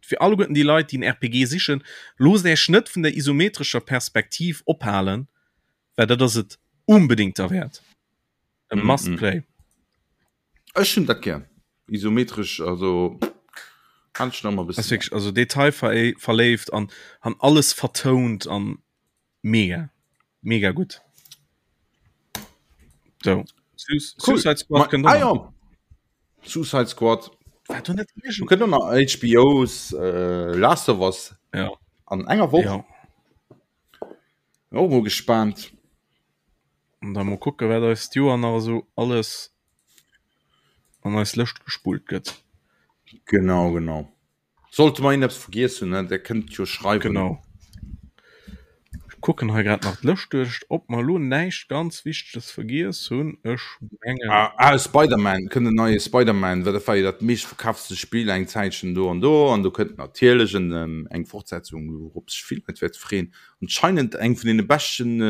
fir alleguerten déi Leit, déi en RPG sichen, loosst Äech net vun der isometrescher Perspektiv ophalen, well dat ass et unbedéngt derwäert. E mm, must mm. play. Ech hunn dat gär. Isometresch, also kann ich noch mal Ass bëssen. wirklich, also detailverléift an han alles vertount an mega mega gutt. So. Su Cool. Suicide Squad Ma, kënnt ah, och nach. ja. Suicide Squad. War do net Du irgend kënnt och nach HBO's äh, Last of Us Ja. an enger Woch. Ja. Och mol gespaant. An da mol kucke wat eis d'Joer nach esou alles an eis Lëscht gespullt gëtt. Genau, genau. Sollte mer iergendeppes vergiess hunn, ne, der kënnt jo schreiwen. Genau. Ech kucken hei grad nach d'Lëscht duerch, ob mer elo näischt ganz Wichteges vergiess hunn. Ech mengen. Ah, ah, Spider-Man, kënnt en neie Spider-Man, well dat war jo dat meeschtverkaftste Spill eng Zäitchen do an do. An do kënnt natierlech en, eng Fortsetzung, wourop sech vill Leit wäerte freeën. Anscheinend eng vun deene beschten,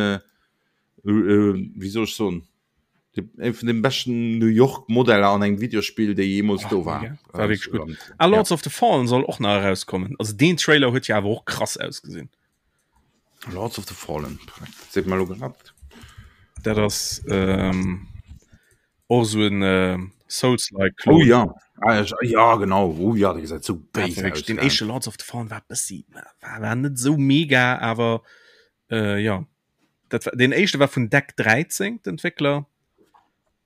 wéi soll ech soen, eng vun den beschten New York Modeller an engem Videospill, déi jeemools do war. Mega. War wierklech gutt. Ah, Lords of the Fallen soll och nach erauskommen. Also deen Trailer huet jo awer och krass ausgesinn. Lords of the Fallen, dat seet mer elo grad. Dat ass ähm, och esou en äh, Souls-like Klon. Oh ja, ah, ja, ja genau, oh ja, dee gesäit sou Dat béis war wierklech, aus. den Gell? éischte Lords of the Fallen war bëssi, war, war net sou mega, awer äh, ja. Dat war, den éischte war vun Deck 13, d'Entwéckler.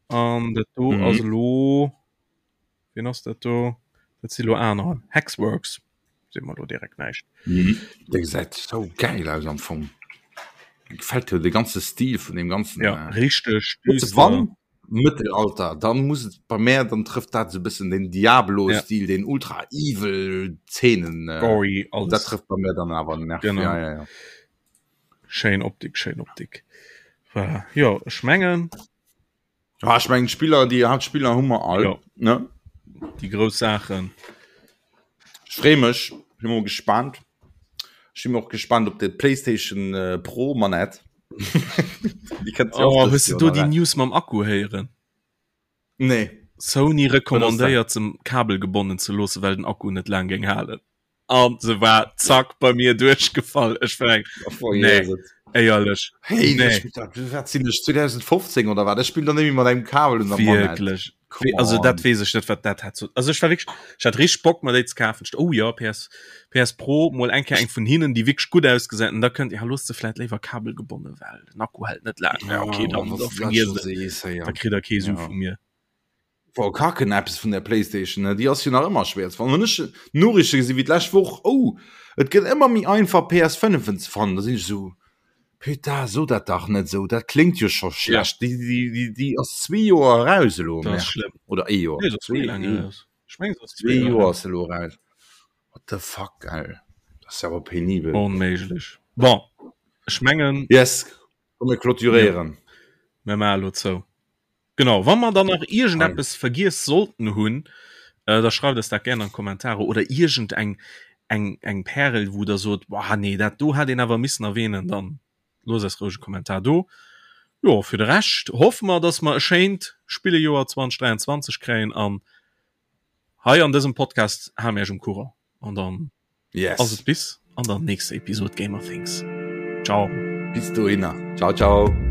An dat do Mhm. ass elo, wien ass dat do? Dat si lo aner. Hexworks. Seet mer lo direkt näischt. Mhm. Dee gesäit sou gäil aus am Fong. Mir gefält jo de ganze Stil vun deem ganzen. Ja, äh, richteg Hues de düster. wann? Mëttelalter, dann muss et bei mär, dann trëfft dat esou e bëssen den Diablo-Stil, ja. den ultra evil Zeenen. Äh, Gory, alles. Dat trëfft bei mär dann awer den Nerv. Genau. Ja, ja, ja. Schéin Optik, schéin Optik. Voilà. Jo, ech mengen. Ja, ech mengen Spiller, déi Hauptspiller hu mer all. Ja. Ne? Déi grouss Saachen. Ech freeë mech, bin mol gespannt. Ech si och gespannt op de PlayStation äh, Pro Manett. oh, hues du do déi News mam Akku héieren? Nee. Sony rekommandéiert se kabelgebonnen ze loosse well den Akku net laang géing halen. An se war zack bei mir duerchgefall. Ech war eng nee, éierlech. Hey, nee. wat sinn ech 2015 oder wat? Ech spill dann nemmi mat engem Kabel un der Wierklech. Also dat wees ech net wat dat hat. Also ech war wierklech ech hat richteg Bock mer déi ze kafen. Oh ja PS PS Pro mol eng Kéier eng vun hinnen déi wierklech gutt ausgesäit an da kënnt ja looss se vläit léiwer kabelgebonne well den Akku hält net laang. Ja okay dann da vergiess et. Da kritt der kee Su vu mir. War kacken eppes vun der Playstation ne déi ass jo nach ëmmer schwéier ze fannen. Wann ech Noriichte gesi wéi d'lescht Woch oh et gëtt ëmmer méi einfach PS5en ze fannen, da sinn ech esou putain so dat dach net esou, dat kléngt jo scho schlecht. Déi déi déi déi ass zwee Joer eraus elo Dat ass schlëmm. oder ee Joer Nee, dat ass méi laang eraus. Ech mengen se ass zwee Joer ass se elo eraus. What the fuck gell, dat ass jo awer penibel. Onméiglech. Bon ech mengen. Yes, komm mir clôturéieren. Mir maache elo zou. Genau, wa mer dann nach iergendeppes vergiess sollten hunn, äh, da schreift eis dat gären an d'Kommentare oder iergend eng eng eng Pärel, wou der sot, boah nee, dat do hätt een awer missen erwähnen, dann loosst eis roueg e Kommentar do. Jo, fir de Rescht hoffe mer, dass mer e schéint Spillejoer 2023 kréien an hei an dësem Podcast hale mir iech um Courant an dann yes. ass et bis an der nächster Episode Gamer Things. Ciao. Bis dohinner. Ciao, ciao.